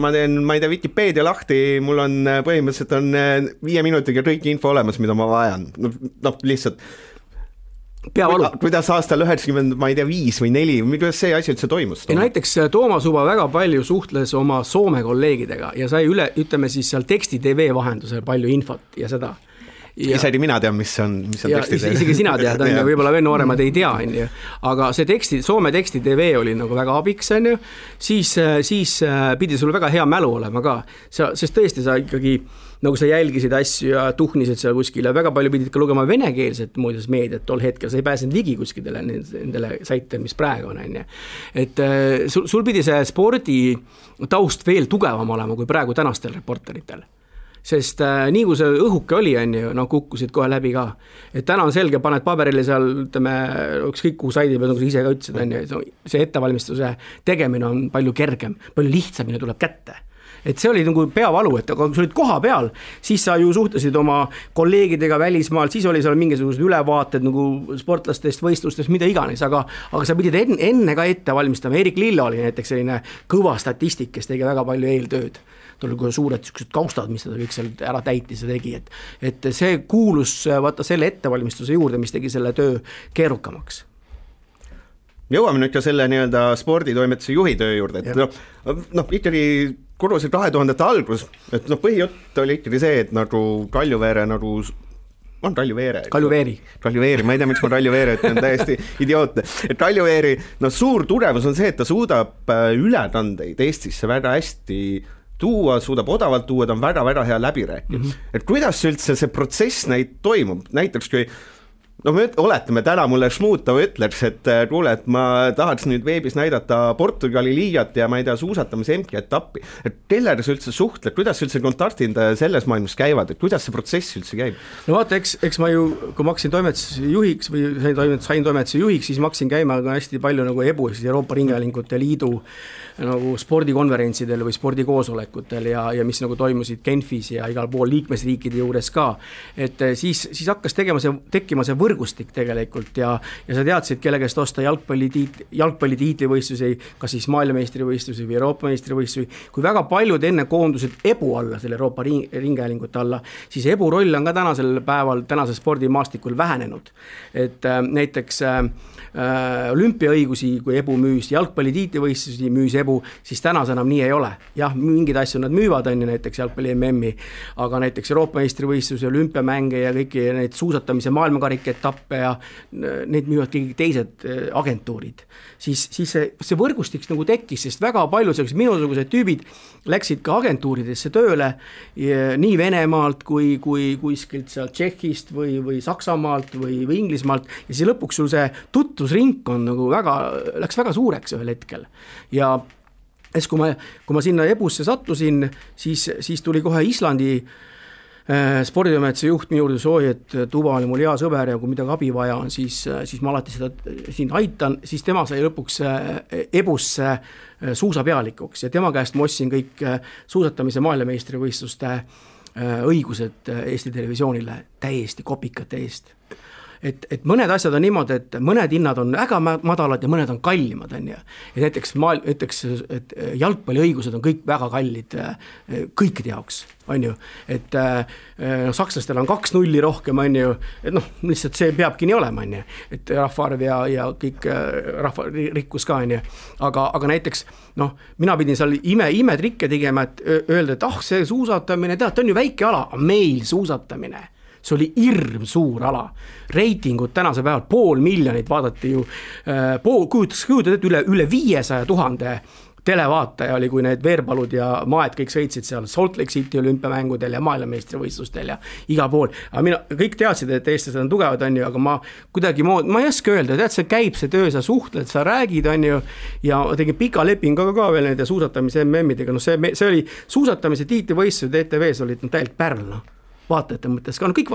[SPEAKER 2] Ma teen, Wikipeedia lahti, mul on põhimõtteliselt on 5 minutiga kõik info olemas, mida ma vajan. Lihtsalt
[SPEAKER 3] peavalu.
[SPEAKER 2] Kuidas aastal 90, ma ei tea, 5 või 4, kuidas see asi üldse toimus?
[SPEAKER 3] Näiteks Toomas Uba väga palju suhtles oma Soome kolleegidega ja sai ütleme siis seal teksti TV vahendusel palju infot ja seda.
[SPEAKER 2] Isegi mina tean, mis on teksti TV.
[SPEAKER 3] Isegi sina tead, on ju, võib-olla veel nooremad ei tea, on ju. Aga see Soome teksti TV oli nagu väga abiks, on ju. Siis pidi sul väga hea mälu olema ka, sest tõesti sa ikkagi nagu sa jälgisid asju ja tuhnisid seal kuskil ja väga palju pidid ka lugema venekeelset muudes meediat tol hetkel, sa ei pääsenud ligi kuskidele nendele saitele, mis praegu on, on ju. Et sul pidi see spordi taust veel tugevam olema kui praegu tänastel reporteritel. Sest nii kui see õhuke oli, on ju, kukkusid kohe läbi ka. Et täna on selge, paned paberile seal, ütleme, ükskõik kuhu saidi peal, nagu sa ise ka ütlesid, on ju, see ettevalmistuse tegemine on palju kergem, palju lihtsamini tuleb kätte. Et see oli nagu peavalu, et aga kui sa olid koha peal, siis sa ju suhtlesid oma kolleegidega välismaal, siis oli seal mingisugused ülevaated nagu sportlastest, võistlustest, mida iganes, aga sa pidid enne ka ette valmistama. Erik Lilla oli näiteks selline kõva statistik, kes tegi väga palju eeltööd. Ta oli suured kaustad, mis ta kõik seal ära täitis ja tegi, et see kuulus vaata selle ettevalmistuse juurde, mis tegi selle töö keerukamaks.
[SPEAKER 2] Jõuame nüüd ka selle nii-öelda sporditoimetuse juhi töö juurde, et ikkagi korrusid 2000 algus, et põhijutt oli ikkagi see, et nagu Kaljuveere nagu on Kaljuveeri, ma ei tea, miks ma Kaljuveere, et on täiesti idiootne. Et Kaljuveeri, suur tugevus on see, et ta suudab ülekandeid Eestisse väga hästi tuua, suudab odavalt tuua, ta on väga-väga hea läbirääkija. Et kuidas üldse see protsess toimub, näiteks kui me oletame täna mulle Šmutov ütleks, et kuule, et ma tahaks nüüd veebis näidata Portugali liigat ja ma ei tea, suusatamise MK-etappi, et kellega sa üldse suhtled, kuidas üldse kontaktid selles maailmas käivad, et kuidas see protsess üldse käib?
[SPEAKER 3] No vaata, eks ma ju, kui ma hakkasin toimetuse juhiks või sain toimetuse juhiks, siis ma hakkasin käima hästi palju nagu EBU, siis Euroopa Ringhäälingute Liidu nagu spordikonverentsidel või spordikoosolekutel ja mis nagu toimusid Genfis ja igal pool liikmesriikide juures ka, et siis hakkas tekkima see võrgustik tegelikult ja sa teadsid, kelle käest osta jalgpallitiitlivõistlusi, kas siis maailmameistrivõistlusi või Euroopa meistrivõistlusi, kui väga paljud enne koondusid EBU alla, selle Euroopa Ringhäälingute alla, siis EBU roll on ka tänasel päeval, tänase spordimaastikul vähenenud, et näiteks olümpiaõigusi, kui EBU müüs, jalgpallitiitlivõistlusi müüs EBU, siis tänas enam nii ei ole. Jah, mingid asju nad müüvad, on ju, näiteks jalgpalli MM-i, aga näiteks Euroopa meistrivõistluse, olümpiamänge ja kõiki neid suusatamise maailmakariketappe ja neid müüvad kõik teised agentuurid. Siis see võrgustik nagu tekkis, sest väga palju minusugused tüübid läksid ka agentuuridesse tööle nii Venemaalt kui kuskilt seal Tšehhist või Saksamaalt või Inglismaalt ja siis lõpuks sul see tuttusringkond nagu läks väga suureks ühel hetkel ja kui ma sinna EBUsse sattusin, siis tuli kohe Islandi sporditoimetuse juht minu juurde soovi, et Tuba oli mul hea sõber ja kui midagi abi vaja on, siis ma alati seda siin aitan, siis tema sai lõpuks EBUsse suusapealikuks ja tema käest ma ostsin kõik suusatamise maailmameistrivõistluste õigused Eesti televisioonile täiesti kopikate eest. et mõned asjad on niimoodi, et mõned hinnad on väga madalad ja mõned on kallimad, on ju. Et näiteks, et jalgpalliõigused on kõik väga kallid kõikide jaoks, on ju. Et sakslastel on 2-0 rohkem, on ju, et noh, lihtsalt see peabki nii olema, on ju. Et rahvaarv ja kõik rahvarikkus ka, on ju. Aga näiteks, noh, mina pidin seal imetrikke tegema, et öelda, et see suusatamine, tead, on ju väike ala, meil suusatamine. See oli hirm suur ala. Reitingud tänase päeval 500,000 vaadati ju, kujutas üle 500,000 televaataja oli, kui need Veerpalud ja Maed kõik sõitsid seal Salt Lake City olümpiamängudel ja maailmameistrivõistlustel ja iga pool. Aga kõik teadsid, et eestlased on tugevad, on ju, aga ma ei oska öelda, tead, see käib see töö, sa suhtled, sa räägid, on ju, ja tegin pika lepingu ka veel nende suusatamise MM-idega, no see oli suusatamise tiitlivõistlused ETV-s olid täielikult pärl, noh. Vaatajate mõttes ka, no kõik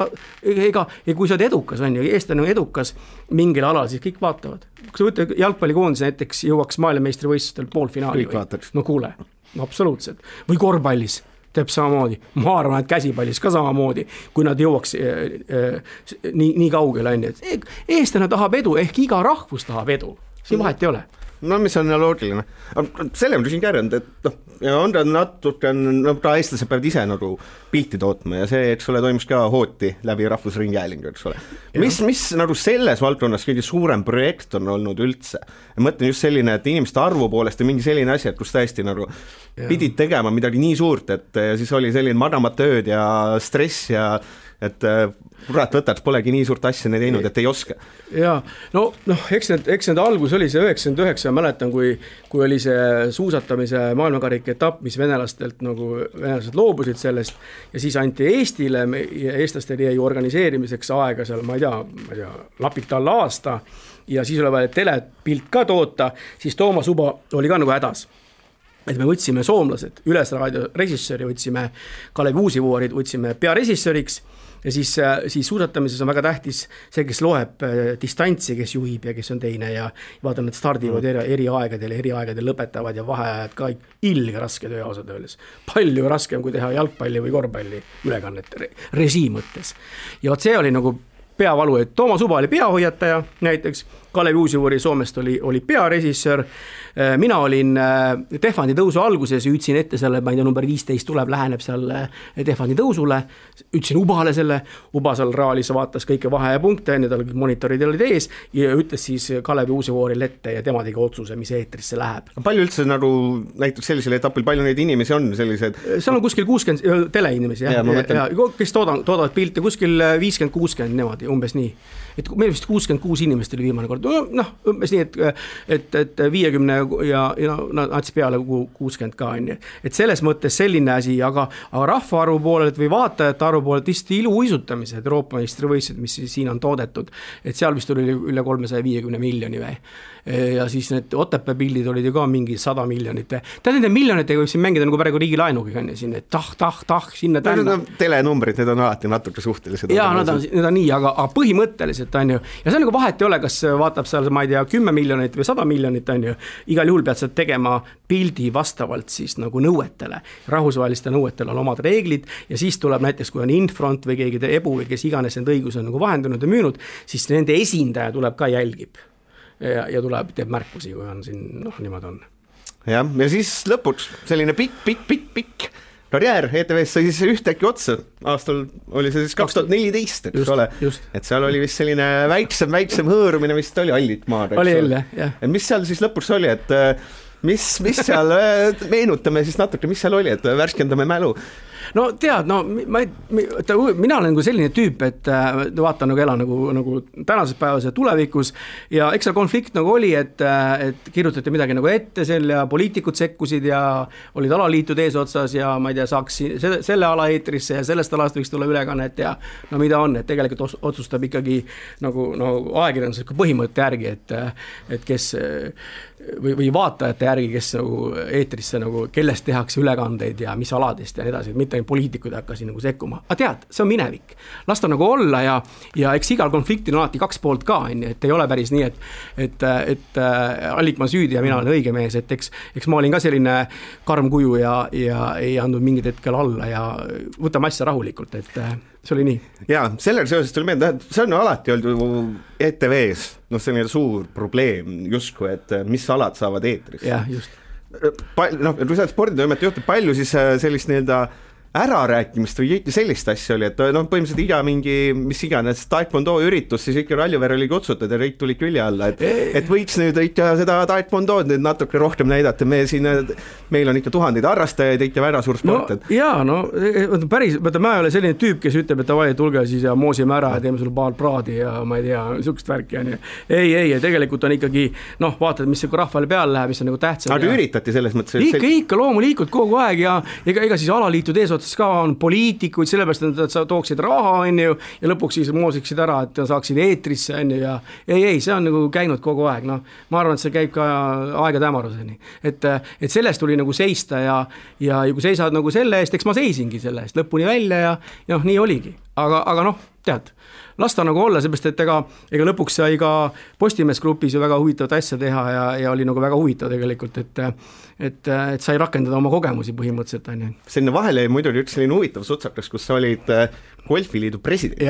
[SPEAKER 3] kui sa oled edukas, on ju, eestlane on edukas mingil alal, siis kõik vaatavad. Kui sa võtta jalgpallikoondis näiteks jõuaks maailmameistrivõistlustel poolfinaali, no kuule, no absoluutselt. Või korvpallis teeb samamoodi, ma arvan, et käsipallis ka samamoodi, kui nad jõuaks nii kaugele, on ju. Eestlane tahab edu, ehk iga rahvus tahab edu, siin vahet ei ole.
[SPEAKER 2] No mis on loogiline. Selle on siin kärjanud, et on ta natuke, ta eestlased peavad ise nagu pilti tootma ja see, eks ole, toimus ka hooti läbi rahvusringhäälingu, eks ole. Mis nagu selles valdkonnas kõige suurem projekt on olnud üldse? Ja mõtlen just selline, et inimeste arvu poolest ja mingi selline asi, et kus tõesti nagu pidid tegema midagi nii suurt, et siis oli selline madamat ööd ja stress ja et kurat võtad, polegi nii suurt asja neid teinud, et ei oska.
[SPEAKER 3] Jaa, eks need algus oli see 99, mäletan, kui oli see suusatamise maailmakarika etapp, mis venelased loobusid sellest ja siis anti Eestile ja eestlastel jäi organiseerimiseks aega seal, ma ei tea, lapik talle aasta ja siis oli vaja telepilt ka toota, siis Toomas Uba oli ka nagu hädas. Et me võtsime soomlased, Ülesraadio režissööri, võtsime Kalev Uusivuorid, võtsime pearežissööriks ja siis suusatamises on väga tähtis see, kes loeb distantsi, kes juhib ja kes on teine ja vaata, need stardivad eri aegadel lõpetavad ja vaheajad ka ilge raske töö ausalt öeldes. Palju raskem kui teha jalgpalli või korvpalli ülekannet režii mõttes. Ja see oli nagu peavalu, et Toomas Uba oli peahoiataja näiteks, Kalev Uusivuori Soomest oli pearežissöör, mina olin Tehvandi tõusu alguses, ütlesin ette selle, ma ei tea, number 15 tuleb, läheneb seal Tehvandi tõusule, ütlesin Ubale selle, Uba seal raalis vaatas kõike vahe ja punkte, need olid monitorid olid ees ja ütles siis Kalev Uusivuoril ette ja tema tegi otsuse, mis eetrisse läheb.
[SPEAKER 2] Palju üldse nagu näiteks sellisel etapil, palju neid inimesi on sellised?
[SPEAKER 3] Seal on kuskil 60 teleinimesi, kes toodavad pilte, kuskil 50-60 nemad, umbes nii. Et meil vist 66 inimest oli viimane kord, umbes nii, et 50 ja nats peale 60 ka on. Et selles mõttes selline asi, aga rahvaarvu poolelt või vaatajate arvu poolelt vist iluuisutamised, Euroopa meistrivõistlused, mis siin on toodetud, et seal vist oli üle 350 miljoni või. Ja siis need Otepää pildid olid ju ka mingi 100 miljonit. Tead, nende miljonitega võib siin mängida nagu praegu riigi laenuga, siin sinna tänna.
[SPEAKER 2] Telenumbrid, need on alati natuke suhtelised.
[SPEAKER 3] Jaa, need on nii, aga põhimõtteliselt on ju, ja see on nagu vahet ei ole, kas vaatab seal, ma ei tea, 10 miljonit või 100 miljonit on ju, igal juhul pead sa tegema pildi vastavalt siis nagu nõuetele, rahvusvaheliste nõuetele on omad reeglid ja siis tuleb näiteks, kui on Infront või keegi Ebu või kes iganes need õigused on nagu vahendanud ja müünud, siis nende esindaja tuleb ka jälgib. Ja tuleb, teeb märkusi, kui on siin, niimoodi on.
[SPEAKER 2] Ja siis lõpuks selline pikk karjäär ETV-s sai siis ühtäkki otsa. Aastal oli see siis 2014, eks ole. Et seal oli vist selline väiksem hõõrumine, vist oli Allit maad.
[SPEAKER 3] Oli jälle, jah.
[SPEAKER 2] Mis seal siis lõpuks oli, et mis seal, meenutame siis natuke, mis seal oli, et värskendame mälu.
[SPEAKER 3] No tead, mina olen nagu selline tüüp, et vaatan nagu elan nagu tänases päevas ja tulevikus ja eks see konflikt nagu oli, et kirjutati midagi nagu ette selle ja poliitikud sekkusid ja olid alaliitud eesotsas ja ma ei tea, saaks selle ala eetrisse ja sellest alast võiks tulla ülekannet ja no mida on, et tegelikult otsustab ikkagi nagu ajakirjandusliku põhimõtte järgi, et kes või vaatajate järgi, kes nagu eetrisse nagu, kellest tehakse ülekandeid ja mis aladest ja nii edasi, mitte poliitikud hakkasid nagu sekkuma, aga tead, see on minevik, las ta nagu olla ja eks igal konfliktil on alati kaks poolt ka, et ei ole päris nii, et Allikmaa süüdi ja mina olen õige mees, et eks ma olin ka selline karm kuju ja ei andnud mingid hetkel alla ja võtame asja rahulikult, et see oli nii.
[SPEAKER 2] Jaa, sellel seoses tuli meelde, see on alati olnud ju ETV-s, selline suur probleem justkui, et mis alad saavad eetris.
[SPEAKER 3] Jah, just.
[SPEAKER 2] Kui sa sporditoimet juhtub, palju siis sellist ärarääkimist või sellist asja oli, et põhimõtteliselt iga mingi, mis iganes taekwondo üritus, siis ikka Raljuver oli kutsutud ja kõik tuli külje alla, et võiks nüüd ikka seda taekwondood nüüd natuke rohkem näidata, meil on ikka tuhandeid harrastajaid, ikka väga suur sport.
[SPEAKER 3] Päris, ma ei ole selline tüüp, kes ütleb, et davai, tulge siis ja moosime ära ja teeme sulle paar praadi ja ma ei tea, niisugust värki ja nii. Ei, tegelikult on ikkagi, vaatad, mis rahvale peale läheb, mis on nagu tähtsam.
[SPEAKER 2] Aga üritati selles mõttes?
[SPEAKER 3] Ikka loomulikult kogu aeg ja ega siis alaliitud eesotsas ka on poliitikuid, sellepärast, et sa tooksid raha, ja lõpuks siis moosiksid ära, et saaksid eetrisse, ja ei, see on nagu käinud kogu aeg, ma arvan, et see käib ka aegade hämaruseni. Et sellest tuli nagu seista ja kui seisad nagu selle eest, eks ma seisingi selle eest lõpuni välja ja nii oligi. Aga tead, las ta nagu olla, seepärast, et ega lõpuks sai ka Postimees grupis ju väga huvitavat asja teha ja oli nagu väga huvitav tegelikult, et sai rakendada oma kogemusi põhimõtteliselt.
[SPEAKER 2] Selline vahele muidu üks selline huvitav sutsakas, kus sa olid golfiliidu president.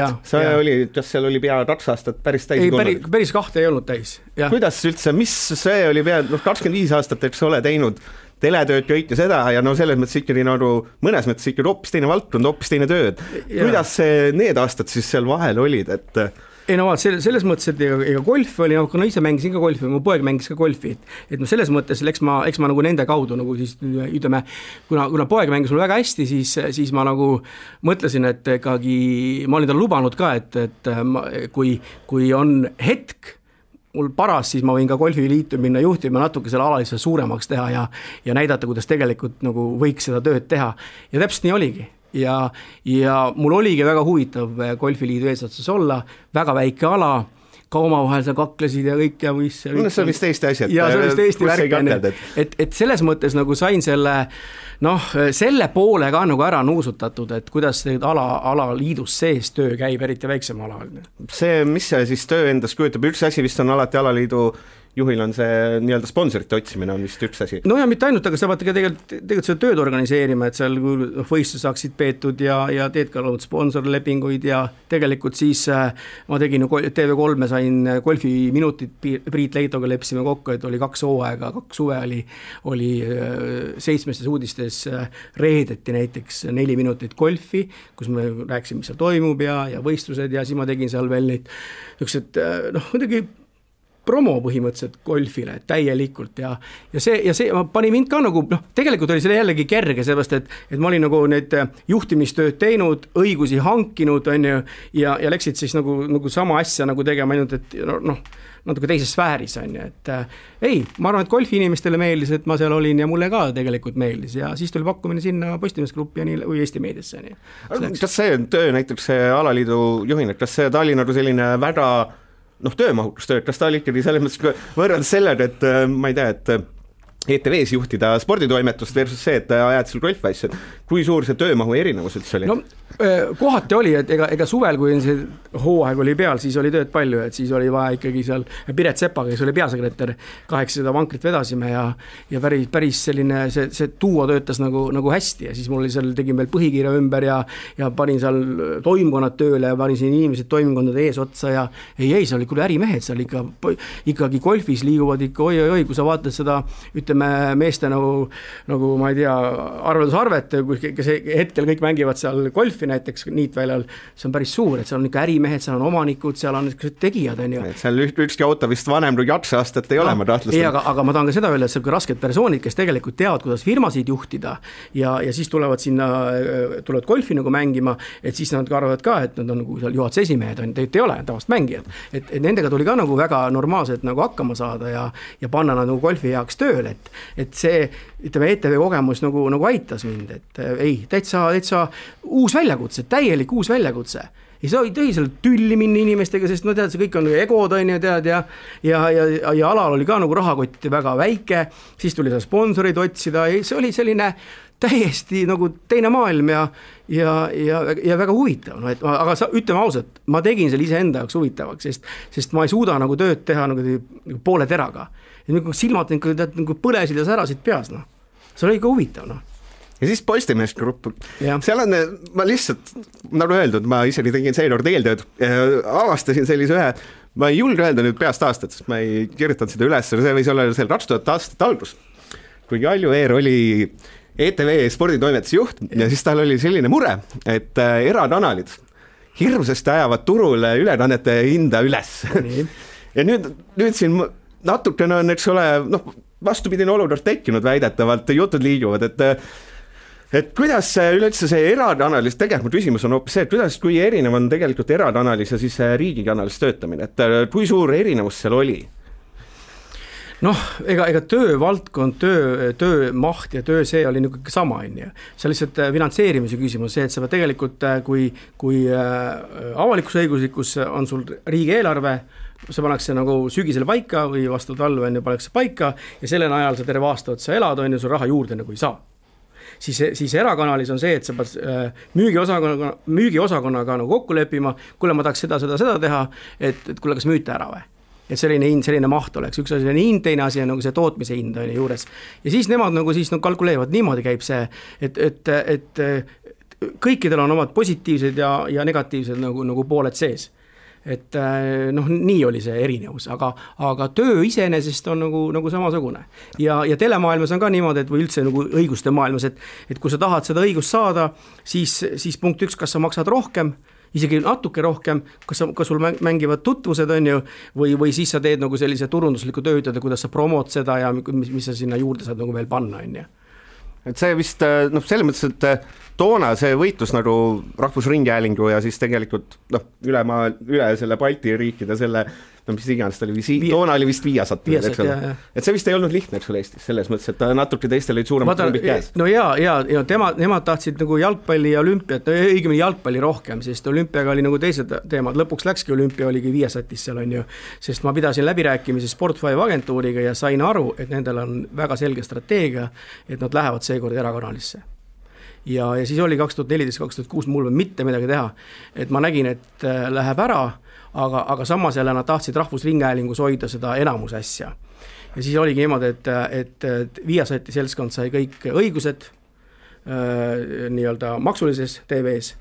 [SPEAKER 2] Kas seal oli pea 2 aastat päris täis?
[SPEAKER 3] Ei, päris 2 ei olnud täis.
[SPEAKER 2] Kuidas üldse, mis see oli pea 25 aastat, eks ole teinud teletööd kõik ja seda ja selles mõttes ikkagi mõnes mõttes ikkagi hoopis teine valdkond, hoopis teine tööd. Kuidas need aastad siis seal vahel olid, et
[SPEAKER 3] ei selles mõttes, et ega golf oli, kuna ise mängisin ka golfi, mu poeg mängis ka golfi, et selles mõttes, eks ma nagu nende kaudu nagu siis ütleme, kuna poeg mängis mul väga hästi, siis ma nagu mõtlesin, et ikkagi ma olin tal lubanud ka, et kui on hetk mul paras, siis ma võin ka golfiliitu minna juhtima natuke selle alalisele suuremaks teha ja näidata, kuidas tegelikult nagu võiks seda tööd teha. Ja täpselt nii oligi. Ja mul oligi väga huvitav golfiliidu eesotsas olla, väga väike ala, ka omavahel sa kaklesid ja kõik ja võis.
[SPEAKER 2] See on vist Eesti asjad.
[SPEAKER 3] Ja see on vist Eesti värk. Et selles mõttes nagu sain selle poole ka nagu ära nuusutatud, et kuidas alaliidus sees töö käib, eriti väiksem ala.
[SPEAKER 2] Mis see siis töö endas kujutab? Üks asi vist on alati alaliidu juhil on see nii-öelda sponsorite otsimine on vist üks asi.
[SPEAKER 3] Ja mitte ainult, aga sa pead tegelikult seda tööd organiseerima, et seal võistlus saaksid peetud ja teed ka sponsorlepinguid ja tegelikult siis ma tegin TV3 sain golfiminutit Priit Leitoga lepsime kokku, et oli 2 hooaega, 2 suve oli 7 uudistes reedeti näiteks 4 minutit golfi, kus me rääkisime, mis seal toimub ja võistlused ja siis ma tegin seal veel neid muidugi promo põhimõtteliselt golfile täielikult ja see pani mind ka nagu, tegelikult oli selle jällegi kerge, sellepärast, et ma olin nagu need juhtimistööd teinud, õigusi hankinud, ja läksid siis nagu sama asja nagu tegema ainult, et natuke teises sfääris, et ei, ma arvan, et golfi inimestele meeldis, et ma seal olin ja mulle ka tegelikult meeldis ja siis tuli pakkumine sinna Postimees gruppi või Eesti meediasse.
[SPEAKER 2] Kas see töö näiteks see alaliidu juhin, kas see ta oli nagu selline väga töömahutustööd, kas ta oli ikkagi selles mõttes võrreldes sellega, et ma ei tea, et ETV-s juhtida sporditoimetust versus see, et ajad seal golfasju, kui suur see töömahu erinevus üldse oli?
[SPEAKER 3] Kohati oli, et ega suvel, kui see hooaeg oli peal, siis oli tööd palju, et siis oli vaja ikkagi seal Piret Sepaga, kes oli peasekretär, 800 vankrit vedasime ja päris selline, see tuua töötas nagu hästi ja siis mul oli seal, tegin veel põhikirja ümber ja panin seal toimkonnad tööle ja panin siin inimesed toimkondade ees otsa ja ei, see oli küll ärimehed seal ikkagi golfis liiguvad ikka oi, kui sa vaatad seda, ütleme, meeste nagu ma ei tea, arveldusarvet, kes hetkel kõik mängivad seal golfi näiteks niitväljal, see on päris suur, et seal on ikka ärimehed, seal on omanikud, seal on tegijad.
[SPEAKER 2] Seal ükski auto vist vanem kui 2 aastat ei ole, ma tahtlustan.
[SPEAKER 3] Ei, aga ma tahan ka seda öelda, et see on rasked persoonid, kes tegelikult teavad, kuidas firmasid juhtida ja siis tulevad golfi nagu mängima, et siis nad arvavad ka, et nad on nagu seal juhatuse esimehed, tegelikult ei ole tavast mängijad. Et nendega tuli ka nagu väga normaalselt nagu hakkama saada ja panna nad nagu golfi heaks tööle, et see, ütleme, ETV kogemus nagu aitas mind, et ei, täitsa uus väljakutse, täielik uus väljakutse. Ja see tõi seal tülli minna inimestega, sest tead, see kõik on egod, tead, ja alal oli ka nagu rahakott väga väike, siis tuli seal sponsorid otsida ja see oli selline täiesti nagu teine maailm ja väga huvitav, no et aga ütleme ausalt, ma tegin selle iseenda jaoks huvitavaks, sest ma ei suuda nagu tööd teha nagu poole teraga. Ja silmad nagu põlesid ja särasid peas, noh. See oli ikka huvitav, noh.
[SPEAKER 2] Ja siis Postimees Grupp, seal on, ma lihtsalt, nagu öeldud, ma isegi tegin seekord eeltööd, avastasin sellise ühe, ma ei julge öelda nüüd peast aastat, sest ma ei kirjutanud seda üles, see võis olla seal 2000 aastat algus, kui Kalju Eer oli ETV sporditoimetuse juht ja siis tal oli selline mure, et erakanalid hirmsasti ajavad turule ülekannete hinda üles. Ja nüüd siin natukene on, eks ole, vastupidine olukord tekkinud väidetavalt, jutud liiguvad, et kuidas üleüldse see erakanalis, tegelikult küsimus on hoopis see, et kuidas, kui erinev on tegelikult erakanalis ja siis riigikanalis töötamine, et kui suur erinevus seal oli?
[SPEAKER 3] Noh, ega töövaldkond, töö maht ja töö see oli nagu sama, see lihtsalt finantseerimise küsimus, see, et sa tegelikult, kui avalikusõiguslikus on sul riigieelarve, see pannakse nagu sügisele paika või vastu talve pannakse paika ja selle ajal sa terve aasta otsa elad, sul raha juurde nagu ei saa. Siis erakanalis on see, et sa pead müügiosakonnaga nagu kokku leppima, kuule ma tahaks seda teha, et kuule kas müüte ära või? Et selline maht oleks, üks asi on hind, teine asi on nagu see tootmise hind on juures. Ja siis nemad nagu siis kalkuleevad, niimoodi käib see, et kõikidel on omad positiivsed ja negatiivsed nagu pooled sees. Et nii oli see erinevus, aga töö iseenesest on nagu samasugune. Ja telemaailmas on ka niimoodi, et või üldse nagu õiguste maailmas, et kui sa tahad seda õigust saada, siis punkt 1, kas sa maksad rohkem, isegi natuke rohkem, kas sul mängivad tutvused on ju, või siis sa teed nagu sellise turundusliku töötada, kuidas sa promod seda ja mis sa sinna juurde saad nagu veel panna on ju.
[SPEAKER 2] Et see vist, selles mõttes, et toona see võitlus nagu Rahvusringhäälingu ja siis tegelikult üle selle Balti riikide selle, mis iganes ta oli, toona oli vist Viasat, et see vist ei olnud lihtne, eks ole Eestis, selles mõttes, et natuke teistel olid suuremad klumbid käes.
[SPEAKER 3] No ja nemad tahtsid nagu jalgpalli ja olümpiat, õigemini jalgpalli rohkem, sest olümpiaga oli nagu teised teemad, lõpuks läkski olümpia oligi Viasatis seal on ju, sest ma pidasin läbirääkimisi Sport5 agentuuriga ja sain aru, et nendel on väga selge strateegia, et nad lähevad seekord erakanalisse. Ja siis oli 2014-2006 mul mitte midagi teha, et ma nägin, et läheb ära, aga samas jälle nad tahtsid Rahvusringhäälingus hoida seda enamus asja. Ja siis oligi niimoodi, et Viasati seltskond sai kõik õigused nii-öelda maksulises TV-s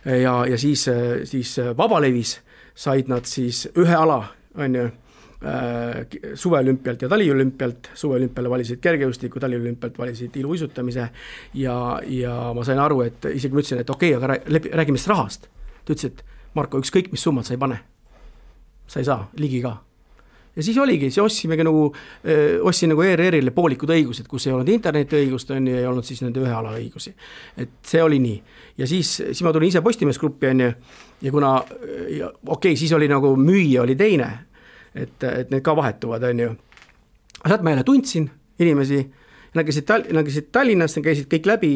[SPEAKER 3] ja siis Vabalevis said nad siis ühe ala, on ju, suveolümpialt ja taliolümpialt, suveolümpiale valisid kergejõustiku, taliolümpialt valisid iluuisutamise ja ma sain aru, et isegi ma ütlesin, et okei, aga räägime sellest rahast. Ta ütles, et Marko, ükskõik mis summad sa ei pane. Sa ei saa, ligi ka. Ja siis oligi, ostsin nagu ERR-ile poolikud õigused, kus ei olnud interneti õigust on, ja ei olnud siis nende ühe ala õigusi. Et see oli nii. Ja siis ma tulin ise Postimees Gruppi on, ja kuna, siis oli nagu müüja oli teine, et need ka vahetuvad on ju. Sealt ma jälle tundsin inimesi, nad käisid Tallinnas, nad käisid kõik läbi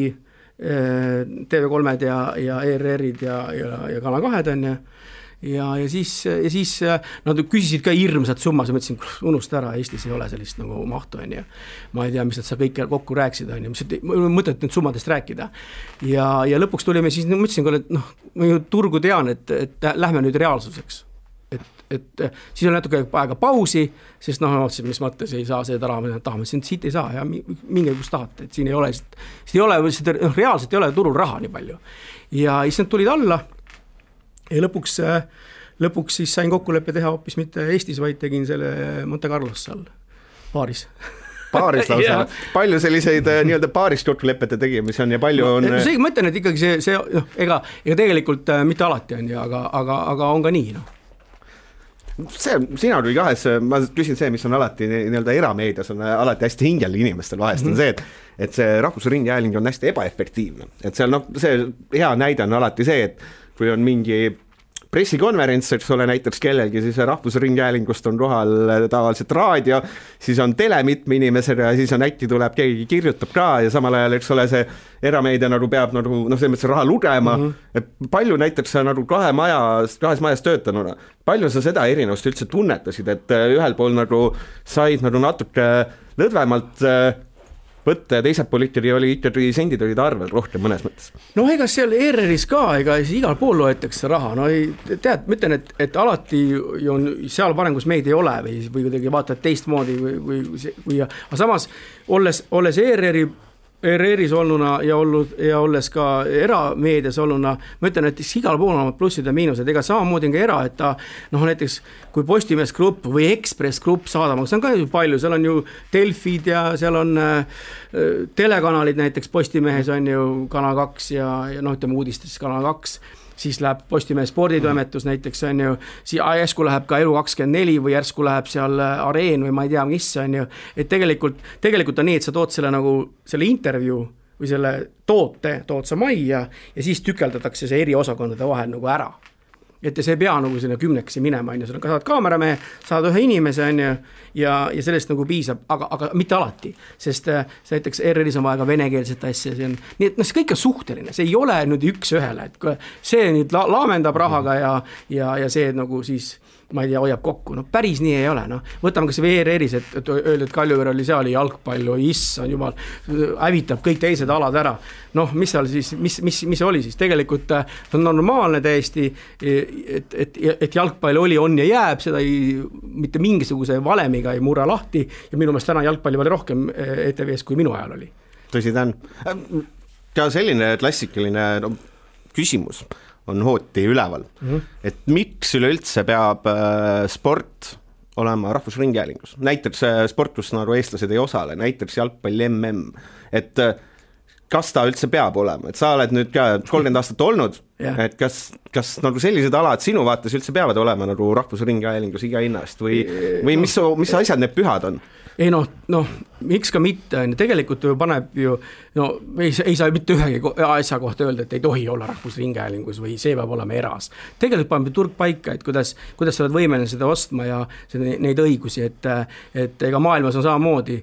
[SPEAKER 3] TV3-d ja ERR-id ja Kanal 2 on ja siis nad küsisid ka hirmsat summas ja mõtlesin, unusta ära, Eestis ei ole sellist nagu mahtu on ja ma ei tea, mis nad sa kõik kokku rääksid on ja mõtlet nüüd summadest rääkida ja lõpuks tulime siis, mõtlesin, et ma ju turgu tean, et lähme nüüd reaalsuseks. Et siis oli natuke aega pausi, sest mõtlesin, mis mõttes ei saa seda raha, tahame, siit ei saa ja minge kus tahate, et siin ei ole, reaalselt ei ole turul raha nii palju. Ja siis nad tulid alla ja lõpuks siis sain kokkuleppe teha hoopis mitte Eestis, vaid tegin selle Monte Carlos seal paaris.
[SPEAKER 2] Paaris lausa, palju selliseid nii-öelda paarist kokkulepete tegimisi on ja palju on...
[SPEAKER 3] See mõtlen, et ikkagi see ega tegelikult mitte alati on, aga on ka nii,
[SPEAKER 2] Sina kui kahes, ma küsin see, mis on alati nii-öelda erameedias on alati hästi hingel inimestel vahest on see, et see Rahvusringhääling on hästi ebaefektiivne, et seal see hea näide on alati see, et kui on mingi pressikonverents, eks ole näiteks kellelgi, siis Rahvusringhäälingust on kohal tavaliselt raadio, siis on tele mitme inimesega ja siis on äkki tuleb, keegi kirjutab ka ja samal ajal, eks ole, see erameedia nagu peab nagu, selles mõttes raha lugema, et palju näiteks sa nagu kahes majas töötanuna, palju sa seda erinevust üldse tunnetasid, et ühel pool nagu said nagu natuke lõdvemalt võtta ja teiselt pool oli ikkagi sendid olid arvel rohkem mõnes mõttes.
[SPEAKER 3] No ega seal ERR-is ka, ega igal pool loetakse raha, no ei, tead, ma ütlen, et alati on seal parem, kus meid ei ole või kuidagi vaatad teistmoodi või aga samas olles ERR-is olnuna ja olles ka erameedias olnuna, ma ütlen, et igal pool on plussid ja miinused, ega samamoodi on ka era, et ta näiteks kui Postimees Grupp või Ekspress Grupp saadab, see on ka ju palju, seal on ju Delfid ja seal on telekanalid näiteks Postimehes on ju Kanal 2 ja ütleme uudistes Kanal 2, siis läheb Postimehe sporditoimetus näiteks on ju, järsku läheb ka Elu24 või järsku läheb seal Areen või ma ei tea, mis on ju, et tegelikult on nii, et sa tood selle intervjuu või selle tood sa majja ja siis tükeldatakse see eri osakondade vahel ära. Et see ei pea sinna 10 minema, on ju, sa saad kaameramehe, saad ühe inimese, on ju, ja sellest piisab, aga mitte alati, sest näiteks ERR-is on vaja ka venekeelset asja, nii et see kõik on suhteline, see ei ole nüüd üks ühele, et see nüüd laamendab rahaga ja see siis ma ei tea, hoiab kokku, päris nii ei ole, võtame kas ERR-is, et öeldi, et Kaljuveer oli seal jalgpallu, issand jumal, hävitab kõik teised alad ära, mis seal siis, mis oli siis, tegelikult on normaalne täiesti, et jalgpall oli, on ja jääb, seda mitte mingisuguse valemiga ei murra lahti ja minu meelest täna jalgpalli oli rohkem ETV-s kui minu ajal oli.
[SPEAKER 2] Tõsi ta on. Ka selline klassikaline küsimus on hooti üleval, et miks üleüldse peab sport olema rahvusringhäälingus, näiteks sport, kus eestlased ei osale, näiteks jalgpalli MM, et kas ta üldse peab olema, et sa oled nüüd ka 30 aastat olnud, et kas sellised alad sinu vaates üldse peavad olema rahvusringhäälingus iga hinnast või mis asjad need pühad on?
[SPEAKER 3] Ei miks ka mitte, tegelikult paneb ju, ei saa mitte ühegi asja kohta öelda, et ei tohi olla rahvusringhäälingus või see peab olema eras. Tegelikult paneb turg paika, et kuidas sa oled võimeline seda ostma ja neid õigusi, et ega maailmas on samamoodi,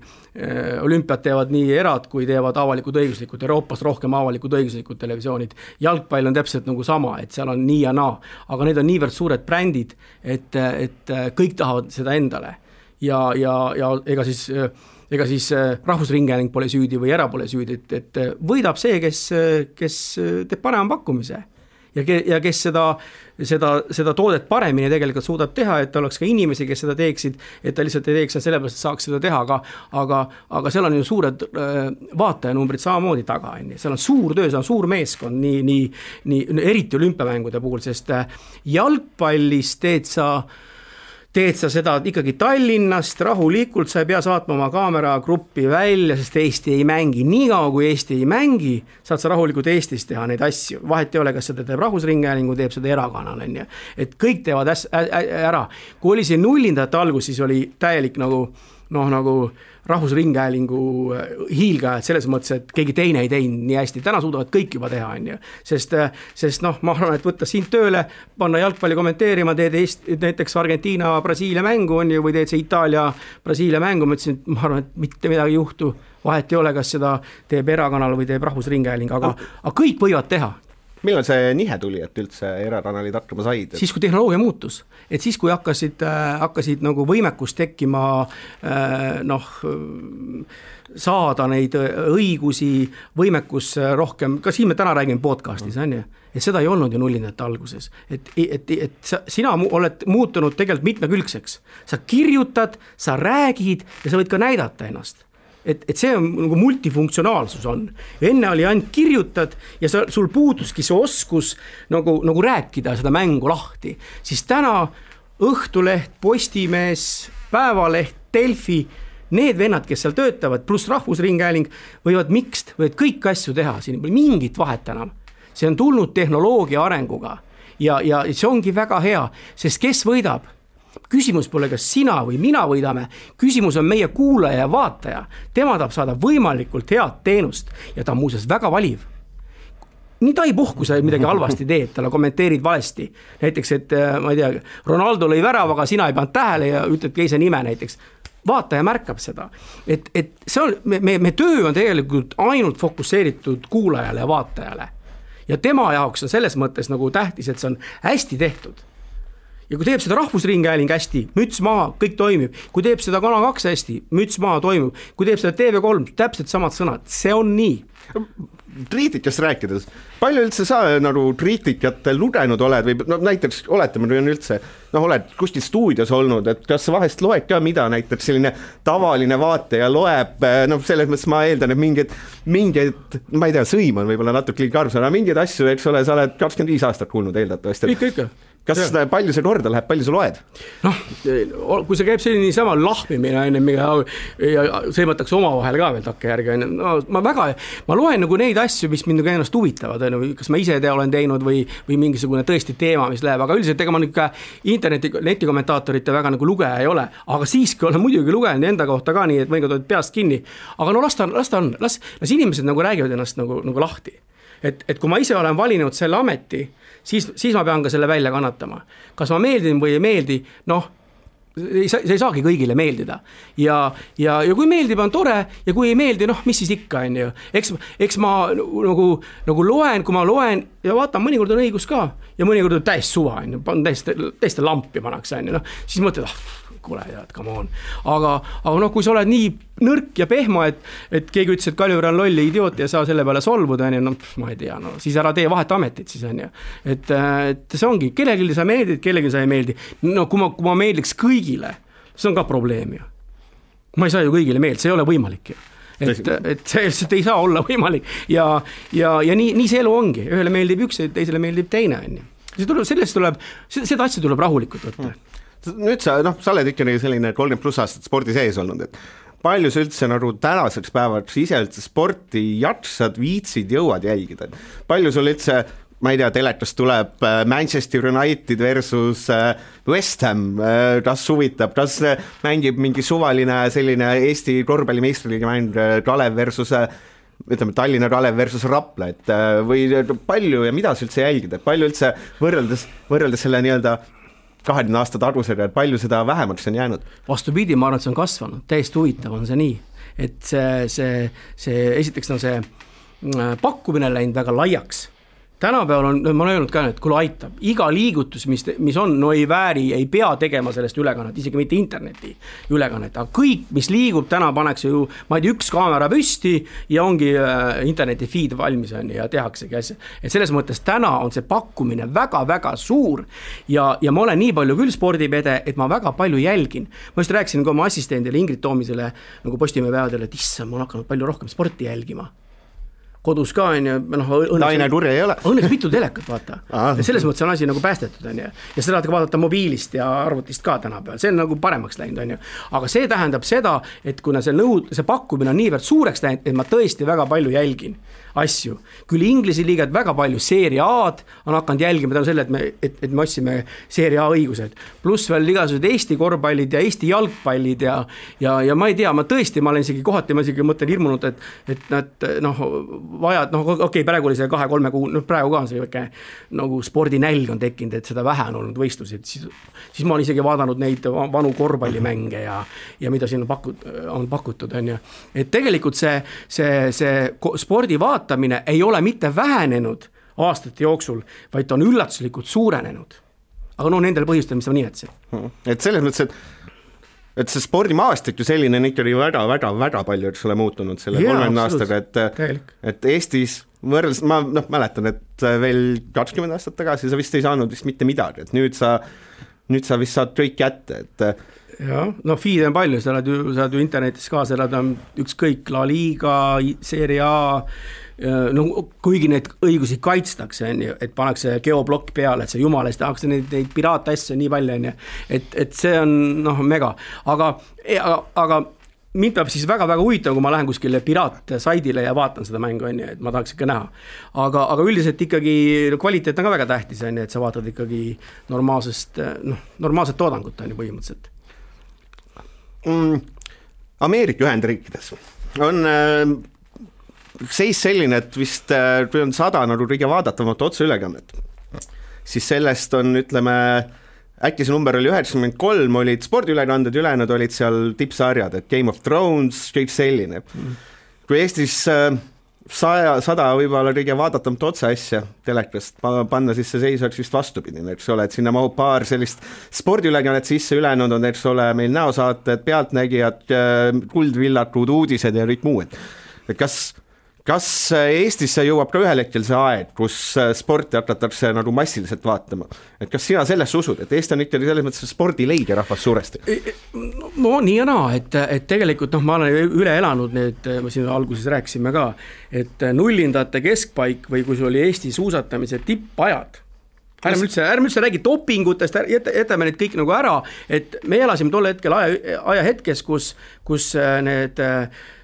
[SPEAKER 3] olümpiad teevad nii erad, kui teevad avalikud õiguslikud, Euroopas rohkem avalikud õiguslikud televisioonid, jalgpall on täpselt sama, et seal on nii ja naa, aga need on niivõrd suured brändid, et kõik tahavad seda endale. Ja ega siis rahvusringhääling pole süüdi või era pole süüdi, et võidab see, kes teeb parema pakkumise ja kes seda toodet paremini tegelikult suudab teha, et oleks ka inimesi, kes seda teeksid, et ta lihtsalt ei teeks sellepärast, et saaks seda teha, aga seal on ju suured vaatajanumbrid samamoodi taga, seal on suur töö, seal on suur meeskond, nii eriti olümpiamängude puhul, sest jalgpallis teed sa seda ikkagi Tallinnast rahulikult, sa ei pea saatma oma kaameragruppi välja, sest Eesti ei mängi. Niikaua kui Eesti ei mängi, saad sa rahulikult Eestis teha neid asju. Vahet ei ole, kas seda teeb rahvusringhäälingu, teeb seda erakanal. Et kõik teevad ära. Kui oli see nullindate algus, siis oli täielik nagu rahvusringhäälingu hiilgajad selles mõttes, et keegi teine ei teinud nii hästi. Täna suudavad kõik juba teha, sest ma arvan, et võtta sind tööle, panna jalgpalli kommenteerima, teed näiteks Argentiina-Brasiilia mängu on ju, või teed see Itaalia-Brasiilia mängu, ma ütlesin, et ma arvan, et mitte midagi ei juhtu, vahet ei ole, kas seda teeb erakanal või teeb rahvusringhääling, aga kõik võivad teha.
[SPEAKER 2] Millal see nihe tuli, et üldse erakanalid hakkama said?
[SPEAKER 3] Siis, kui tehnoloogia muutus. Et siis, kui hakkasid võimekus tekkima saada neid õigusi, võimekus rohkem, ka siin me täna räägime podcastis, on ju, et seda ei olnud ju nullindate alguses. Et sina oled muutunud tegelikult mitmekülgseks. Sa kirjutad, sa räägid ja sa võid ka näidata ennast. Et see on multifunktsionaalsus on. Enne oli ainult kirjutad ja sul puuduski see oskus nagu rääkida seda mängu lahti. Siis täna Õhtuleht, Postimees, Päevaleht, Delfi, need vennad, kes seal töötavad, pluss rahvusringhääling võivad kõik asju teha, siin pole mingit vahet enam. See on tulnud tehnoloogia arenguga ja see ongi väga hea, sest kes võidab? Küsimus pole, kas sina või mina võidame, küsimus on meie kuulaja ja vaataja. Tema tahab saada võimalikult head teenust ja ta on muuseas väga valiv. Nii ta ei puhku, sa midagi halvasti teed, talle kommenteerid valesti. Näiteks, et ma ei tea, Ronaldo lõi värava, aga sina ei pannud tähele ja ütled keise nime näiteks. Vaataja märkab seda. Et see on, me töö on tegelikult ainult fokusseeritud kuulajale ja vaatajale. Ja tema jaoks on selles mõttes nagu tähtis, et see on hästi tehtud. ja kui teeb seda Rahvusringhääling hästi, müts maha, kõik toimib. Kui teeb seda Kanal 2 hästi, müts maha, toimib. Kui teeb seda TV3, täpselt samad sõnad, see on nii.
[SPEAKER 2] Triitikast rääkides, palju üldse sa nagu triitikat lugenud oled või no, näiteks oletame, kui on üldse, oled kuskil stuudios olnud, et kas sa vahest loed ka, mida näiteks selline tavaline vaataja loeb, selles mõttes ma eeldan, et mingeid, ma ei tea, sõim on võib-olla natuke karus, aga mingeid asju, eks ole, sa oled 25 aastat kuulnud eeldatavasti.
[SPEAKER 3] Ikka.
[SPEAKER 2] Kas palju see korda läheb, palju sa loed?
[SPEAKER 3] Kui see käib selline sama lahmimine, ja sõimatakse omavahel ka veel takke järgi, ma loen nagu neid asju, mis mind ennast huvitavad, kas ma ise olen teinud või mingisugune tõesti teema, mis läheb, aga üldiselt ega ma netikommentaatorite väga nagu lugeja ei ole, aga siiski olen muidugi lugenud enda kohta ka nii, et mõnikord oled peast kinni, aga las inimesed nagu räägivad ennast nagu lahti. Et kui ma ise olen valinud selle ameti, siis ma pean ka selle välja kannatama. Kas ma meeldin või ei meeldi, see ei saagi kõigile meeldida. Ja kui meeldib, on tore, ja kui ei meeldi, mis siis ikka on ju. Eks ma nagu loen, kui ma loen ja vaatan, mõnikord on õigus ka ja mõnikord on täiesti suva, täiesti lampi panaks, siis mõtled, kuule, come on. Aga kui sa oled nii nõrk ja pehmo, et keegi ütles, et Kaljur on lolli idioot ja saa selle peale solvuda, ma ei tea, siis ära tee vahet ametit siis on ju. Et see ongi, kellelgi sa meeldid, kellelgi sa ei meeldi. Kui ma meeldiks kõigile, see on ka probleem ju. Ma ei saa ju kõigile meeldida, see ei ole võimalik ju. Et see ei saa olla võimalik ja nii see elu ongi. Ühele meeldib üks, teisele meeldib teine on ju. Seda asja tuleb rahulikult võtta.
[SPEAKER 2] Nüüd sa oled ikkagi selline 30+ aastat spordi sees olnud, et palju sa üldse nagu tänaseks päevaks ise üldse sporti jaksad, viitsid, jõuad jälgida? Palju sul üldse, ma ei tea, telekast tuleb Manchester United versus West Ham, kas huvitab, kas mängib mingi suvaline selline Eesti korvpallimeistriliiga mäng Kalev versus ütleme Tallinna Kalev versus Rapla, et või palju ja mida sa üldse jälgida, palju üldse võrreldes selle nii-öelda 20 aasta tagusega, et palju seda vähemaks on jäänud?
[SPEAKER 3] Vastupidi, ma arvan, et see on kasvanud, täiesti huvitav on see nii, et see esiteks on see pakkumine läinud väga laiaks. Tänapäeval on, ma olen öelnud ka, et kui aitab, iga liigutus, mis on, ei vääri, ei pea tegema sellest ülekannet, isegi mitte interneti ülekannet, aga kõik, mis liigub, täna paneks ju, ma ei tea, üks kaamera püsti ja ongi interneti feed valmis on ja tehaksegi asja. Et selles mõttes täna on see pakkumine väga-väga suur ja ma olen nii palju küll spordipede, et ma väga palju jälgin. Ma just rääkisin ka oma assistendile Ingrid Toomisele nagu Postimehe päevadele, et issa, ma olen hakanud palju rohkem sporti jälgima. Kodus ka on ju, õnneks mitu telekat vaata. Selles mõttes on asi nagu päästetud on ju. Ja seda vaadata mobiilist ja arvutist ka tänapäeval, see on nagu paremaks läinud on ju. Aga see tähendab seda, et kuna see pakkumine on niivõrd suureks läinud, et ma tõesti väga palju jälgin asju. Küll Inglise liigad väga palju Serie A-d on hakanud jälgima tänu selle, et me otsime Serie A õigused. Pluss veel igasugused Eesti korvpallid ja Eesti jalgpallid ja ma ei tea, ma olen isegi kohati, ma isegi mõtlen hirmunud, et nad vajad, okei, praegu oli see 2-3 kuu, praegu ka on see väike nagu spordinälg on tekkinud, et seda vähe on olnud võistlusid, siis ma olen isegi vaadanud neid vanu korvpallimänge ja mida siin on pakutud on ju. Et tegelikult see spordi vaatamine ei ole mitte vähenenud aastate jooksul, vaid ta on üllatuslikult suurenenud. Aga nendel põhjustel, mis ma nimetasin.
[SPEAKER 2] Et selles mõttes, et see spordimaastik ju selline on ikkagi väga palju, eks ole, muutunud selle 30 aastaga, et Eestis võrreldes, ma mäletan, et veel 20 aastat tagasi sa vist ei saanud vist mitte midagi, et nüüd sa vist saad kõik kätte, et
[SPEAKER 3] jah, feed on palju, sa oled ju internetis ka, sa oled ükskõik La Liga, Serie A, kuigi neid õigusi kaitstakse, et pannakse geoblokk peale, et see jumala eest tahaks neid piraatasju nii palju, et see on mega, aga mind peab siis väga-väga huvitav, kui ma lähen kuskile piraatsaidile ja vaatan seda mängu, et ma tahaks ikka näha. Aga üldiselt ikkagi kvaliteet on ka väga tähtis, et sa vaatad ikkagi normaalset toodangut põhimõtteliselt.
[SPEAKER 2] Ameerika Ühendriikides on seis selline, et vist kui on 100 nagu kõige vaadatavat otseülekannet, siis sellest on, ütleme, äkki see number oli 93, olid spordiülekanded, ülejäänud olid seal tippsarjad, et Game of Thrones, kõik selline. Kui Eestis 100 võib-olla kõige vaadatamata otse asja telekast, panna siis see seis oleks vist vastupidine, eks ole, et sinna mahub paar sellist spordiülekannet sisse, ülejäänud on, eks ole, meil näosaated, pealtnägijad, kuldvillakud, uudised ja kõik muu, et kas Eestisse jõuab ka ühel hetkel see aeg, kus sporti hakatakse nagu massiliselt vaatama? Et kas sina sellesse usud, et Eesti on ikkagi selles mõttes spordileige rahvas suuresti?
[SPEAKER 3] No nii ja naa, et tegelikult ma olen üle elanud need, me siin alguses rääkisime ka, et nullindate keskpaik või kui see oli Eesti suusatamise tippajad, ärme üldse räägi dopingutest, jätame need kõik nagu ära, et me elasime tol hetkel ajahetkes, kus need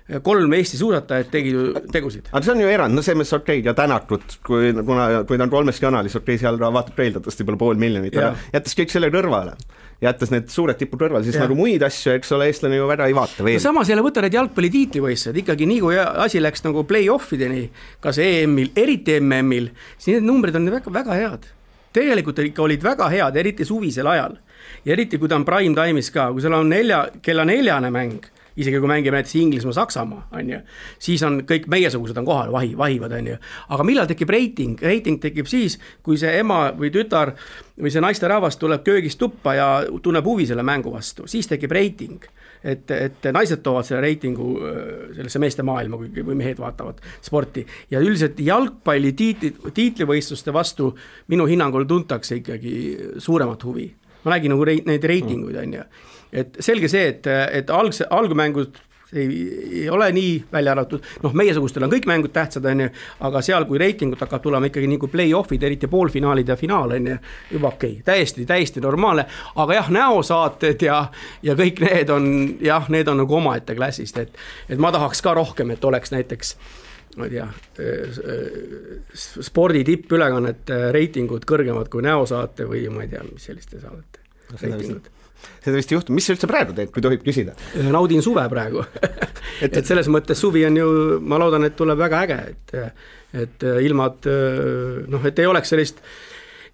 [SPEAKER 3] 3 Eesti suusatajad tegusid.
[SPEAKER 2] Aga see on ju erand, no see mõttes okei, ja tänatud, kui ta on 3 kanalis, okei, seal vaatab eeldatavasti peale 500 000, jättes kõik selle kõrvale. Jättes need suured tipud kõrvale, siis nagu muid asju, eks ole, eestlane ju väga ei vaata veel.
[SPEAKER 3] No samas jälle võtta need jalgpallitiitlivõistlused, ikkagi nii kui asi läks nagu play-offideni, kas EM-il, eriti MM-il, siis need numbrid on väga, väga head. Tegelikult ikka olid väga head, eriti suvisel ajal. Ja eriti kui ta on prime time'is ka, kui seal on kella 4 mäng, isegi kui mängime näiteks Inglismaa, Saksamaa, siis on kõik meiesugused on kohal, vahivad, aga millal tekib reiting? Reiting tekib siis, kui see ema või tütar või see naisterahvas tuleb köögist tuppa ja tunneb huvi selle mängu vastu, siis tekib reiting. Et naised toovad selle reitingu sellesse meeste maailma, kui mehed vaatavad sporti. Ja üldiselt jalgpalli tiitlivõistluste vastu minu hinnangul tuntakse ikkagi suuremat huvi. Ma nägin nagu neid reitinguid, Et selge see, et algumängud ei ole nii välja arvatud, meiesugustel on kõik mängud tähtsad, aga seal, kui reitingut hakkab tulema ikkagi nii kui play-offid, eriti poolfinaalid ja finaal, juba okei, täiesti normaalne, aga jah, näosaated ja kõik need on nagu omaette klassist, et ma tahaks ka rohkem, et oleks näiteks ma ei tea, spordi tippülekannet reitingud kõrgemad kui näosaate või ma ei tea, mis selliste saadete reitingud.
[SPEAKER 2] Seda vist juhtum, mis sa üldse praegu teed, kui tohib küsida?
[SPEAKER 3] Naudin suve praegu. et selles mõttes suvi on ju, ma loodan, et tuleb väga äge, et ilmad, et ei oleks sellist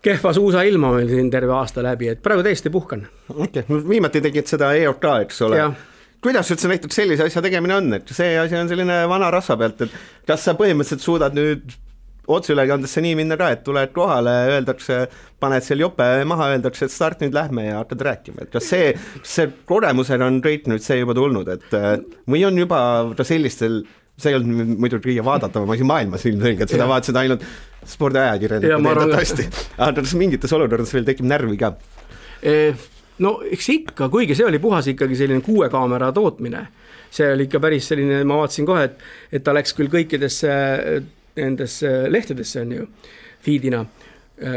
[SPEAKER 3] kehva suusa ilma meil siin terve aasta läbi, et praegu täiesti puhkan.
[SPEAKER 2] Okay. Viimati tegid seda EOK, eks ole? Ja. Kuidas üldse näiteks sellise asja tegemine on, et see asi on selline vana rasva pealt, et kas sa põhimõtteliselt suudad nüüd otseülekandesse nii minna ka, et tuled kohale, öeldakse, paned seal jope maha, öeldakse, et start nüüd lähme ja hakkad rääkima, et kas see kogemusel on kõik nüüd see juba tulnud, et või on juba ta sellistel, see ei olnud muidu kõige vaadatava asi maailmas ilmselge, et seda vaatasid ainult spordiajakirjanikud aga kas mingites olukordades veel tekib närvi ka?
[SPEAKER 3] No eks ikka, kuigi see oli puhas ikkagi selline 6 kaamera tootmine, see oli ikka päris selline, ma vaatasin kohe, et ta läks küll kõikidesse nendesse lehtedesse on ju, feedina,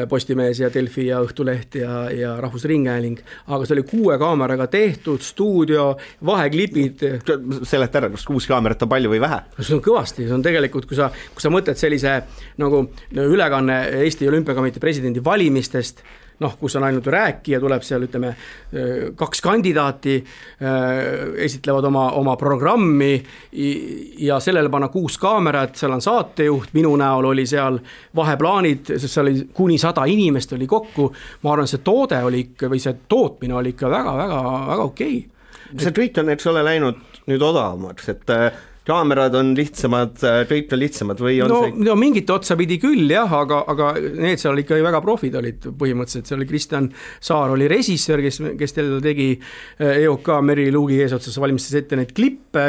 [SPEAKER 3] Postimees ja Delfi ja Õhtuleht ja Rahvusringhääling, aga see oli 6 kaameraga tehtud, stuudio, vaheklipid.
[SPEAKER 2] Seleta ära, kas 6 kaamerat on palju või vähe?
[SPEAKER 3] See on kõvasti, see on tegelikult, kui sa mõtled sellise nagu ülekanne Eesti Olümpiakomitee presidendi valimistest, kus on ainult rääkija, tuleb seal, ütleme, 2 kandidaati, esitlevad oma programmi ja sellele panna 6 kaamerat, seal on saatejuht, minu näol oli seal vaheplaanid, sest seal oli kuni 100 inimest oli kokku, ma arvan, see toode oli ikka, või see tootmine oli ikka väga okei.
[SPEAKER 2] See kõik on, eks ole, läinud nüüd odavamaks, et kaamerad on lihtsamad, kõik on lihtsamad või on
[SPEAKER 3] no mingit otsa pidi küll jah, aga need seal ikka väga profid olid põhimõtteliselt, seal oli Kristjan Saar oli režissöör, kes teil tegi EOK Meri Luugi eesotsas valmistas ette neid klippe,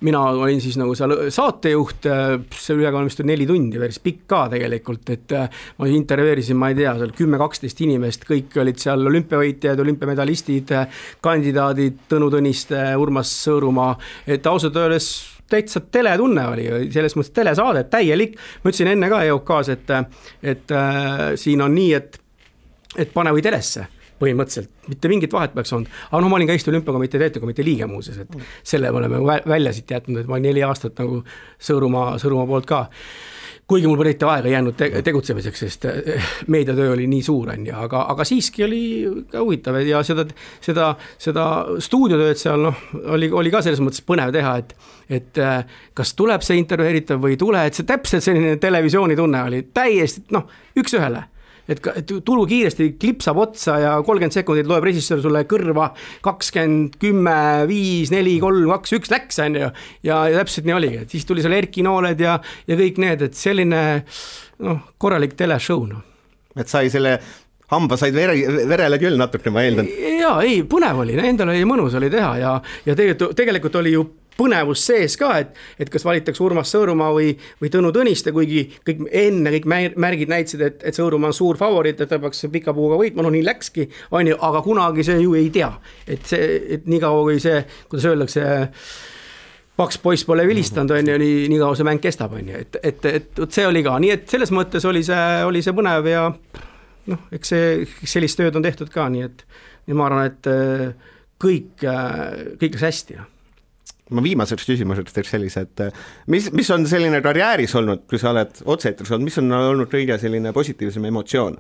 [SPEAKER 3] mina olin siis nagu seal saatejuht, see ülekanne vist 4 tundi, päris pikk ka tegelikult, et ma intervjueerisin, ma ei tea, seal 10-12 inimest, kõik olid seal olümpiavõitjad, olümpiamedalistid, kandidaadid, Tõnu Tõniste, Urmas Sõõrumaa, et ausalt öeldes täitsa teletunne oli, selles mõttes telesaade, täielik, ma ütlesin enne ka EOK-s, et siin on nii, et pane või telesse põhimõtteliselt, mitte mingit vahet peaks olnud, aga ma olin ka Eesti Olümpiakomitee täitevkomitee liige muuses, et selle me oleme välja siit jätnud, et ma olin 4 aastat nagu Sõõrumaa poolt ka. Kuigi mul politi aega jäänud tegutsemiseks, sest meediatöö oli nii suur, aga siiski oli ka huvitav ja seda stuudiotööd seal oli ka selles mõttes põnev teha, et kas tuleb see intervjueeritav või ei tule, et see täpselt selline televisiooni tunne oli täiesti üks ühele. et tulu kiiresti klipsab otsa ja 30 sekundit loeb režissöör sulle kõrva 20, 10, 5, 4, 3, 2, 1 läks, on ju. Ja täpselt nii oligi, et siis tuli seal Erki Nooled ja kõik need, et selline korralik teleshow.
[SPEAKER 2] Et sai selle hamba said verele küll natuke, ma eeldan.
[SPEAKER 3] Jaa, ei, põnev oli, endal oli mõnus oli teha ja tegelikult oli ju põnevus sees ka, et kas valitaks Urmas Sõõrumaa või Tõnu Tõniste, kuigi kõik märgid näitasid, et Sõõrumaa on suur favoriit, et ta peaks pika puuga võitma, nii läkski, on ju, aga kunagi see ju ei tea, et nii kaua kui see, kuidas öeldakse, paks poiss pole vilistanud, on ju, nii kaua see mäng kestab, on ju, et see oli ka, nii et selles mõttes oli see põnev ja eks sellist tööd on tehtud ka, nii et ma arvan, et kõik läks hästi.
[SPEAKER 2] Ma viimaseks küsimuseks teeks sellise, et mis on selline karjääris olnud, kui sa oled otseetris olnud, mis on olnud kõige selline positiivsem emotsioon?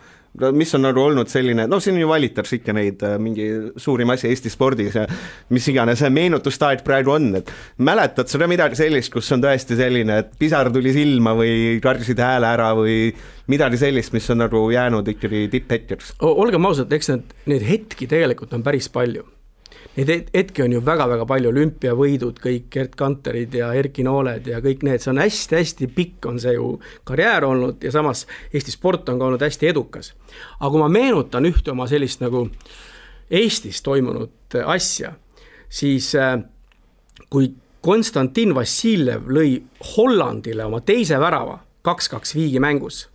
[SPEAKER 2] Mis on olnud selline, siin ju valitaks ikka neid mingi suurim asi Eesti spordis ja mis iganes meenutustaeg praegu on, et mäletad seda midagi sellist, kus on tõesti selline, et pisar tuli silma või kardisid hääle ära või midagi sellist, mis on jäänud ikkagi tipphetkeks?
[SPEAKER 3] Olgem ausad, eks need hetki tegelikult on päris palju. Neid hetki on ju väga-väga palju, olümpiavõidud, kõik Gert Kanterid ja Erki Nooled ja kõik need, see on hästi-hästi pikk on see ju karjäär olnud ja samas Eesti sport on ka olnud hästi edukas. Aga kui ma meenutan ühte oma sellist nagu Eestis toimunud asja, siis kui Konstantin Vassiljev lõi Hollandile oma teise värava 2-2 viigi mängus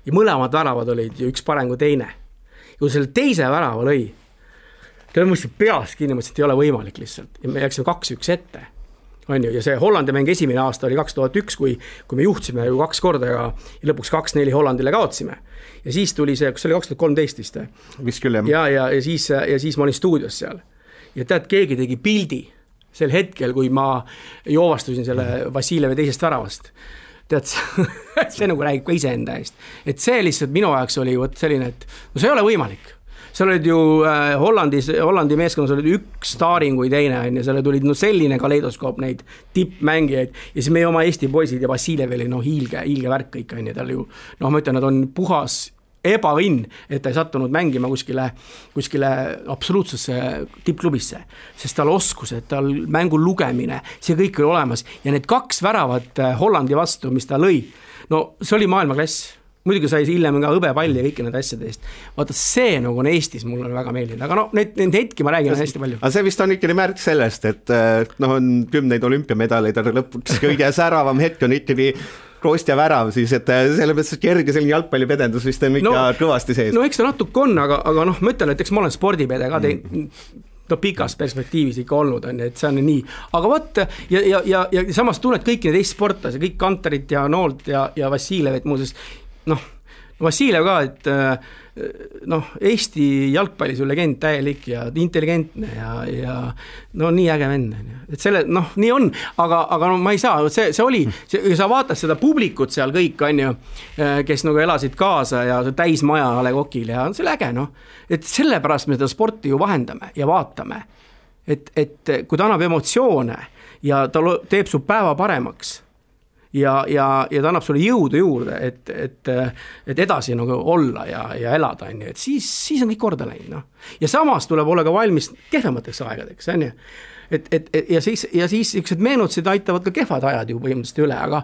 [SPEAKER 3] ja mõlemad väravad olid ju üks parem kui teine. Ja kui selle teise värava lõi, ta mõistsin peas kinni, mõtlesin, et ei ole võimalik lihtsalt. Ja me läksime 2-1 ette. On ju, ja see Hollandi mäng esimene aasta oli 2001, kui me juhtisime ju 2 korda ja lõpuks 2-4 Hollandile kaotsime. Ja siis tuli see, kus oli 2013 vist.
[SPEAKER 2] Vist küll, jah.
[SPEAKER 3] Ja siis ma olin stuudios seal. Ja tead, keegi tegi pildi sel hetkel, kui ma joovastusin selle Vassiljevi teisest väravast. Tead, see nagu räägib ka iseenda eest. Et see lihtsalt minu ajaks oli selline, et see ei ole võimalik. Seal olid ju Hollandi meeskonnas olid üks staaring kui teine, ja seal tulid selline kaleidoskoop neid tippmängijaid ja siis meie oma Eesti poisid ja Vassiljev oli hiilge värk kõik, ja tal ju, ma ütlen, nad on puhas ebaõnn, et ta ei sattunud mängima kuskile absoluutsesse tippklubisse, sest tal oskused, tal mängu lugemine, see kõik oli olemas ja need 2 väravat Hollandi vastu, mis ta lõi, see oli maailmaklass. Muidugi sai hiljem ka hõbepalli ja kõiki need asjade eest. Vaata, see nagu on Eestis, mul on väga meeldinud, aga need hetki ma räägin hästi palju.
[SPEAKER 2] Aga see vist on ikkagi märk sellest, et on 10 olümpiamedaleid, aga lõpuks kõige säravam hetk on ikkagi Kostja värav, siis et sellepärast kerge selline jalgpallipedendus vist on ikka kõvasti sees.
[SPEAKER 3] Eks ta natuke on, aga ma ütlen, et eks ma olen spordipede ka pikas perspektiivis ikka olnud, et see on nii. Aga võt, ja samas tunned kõik need Eesti sportlasi, kõik Kanterit ja Noolt ja Vassiljev, et muuseas Vassiljev ka, et Eesti jalgpallis on legend täielik ja intelligentne ja nii äge vend. Et selle, nii on, aga ma ei saa, see oli, sa vaatad seda publikut seal kõik, on ju, kes nagu elasid kaasa ja täismaja A. Le Coqil ja see oli äge, et sellepärast me seda sporti ju vahendame ja vaatame, et kui ta annab emotsioone ja ta teeb su päeva paremaks, ja ta annab sulle jõudu juurde, et edasi nagu olla ja elada, et siis on kõik korda läinud. Ja samas tuleb olla ka valmis kehvemateks aegadeks, on ju. Ja siis üksid meenutused aitavad ka kehvad ajad ju põhimõtteliselt üle, aga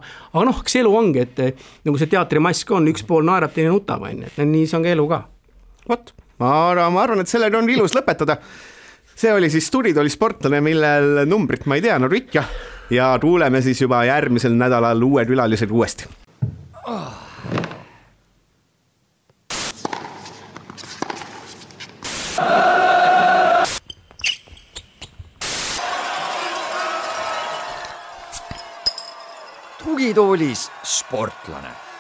[SPEAKER 3] kas elu ongi, et nagu see teatrimask on, üks pool naerab, teine nutab, et nii see on ka elu ka.
[SPEAKER 2] Vot, ma arvan, et sellega on ilus lõpetada. See oli siis Stuuditooli sportlane, millel numbrit ma ei tea, Rikja. Ja kuuleme siis juba järgmisel nädalal uued külalised uuesti.
[SPEAKER 1] Tugitoolis sportlane.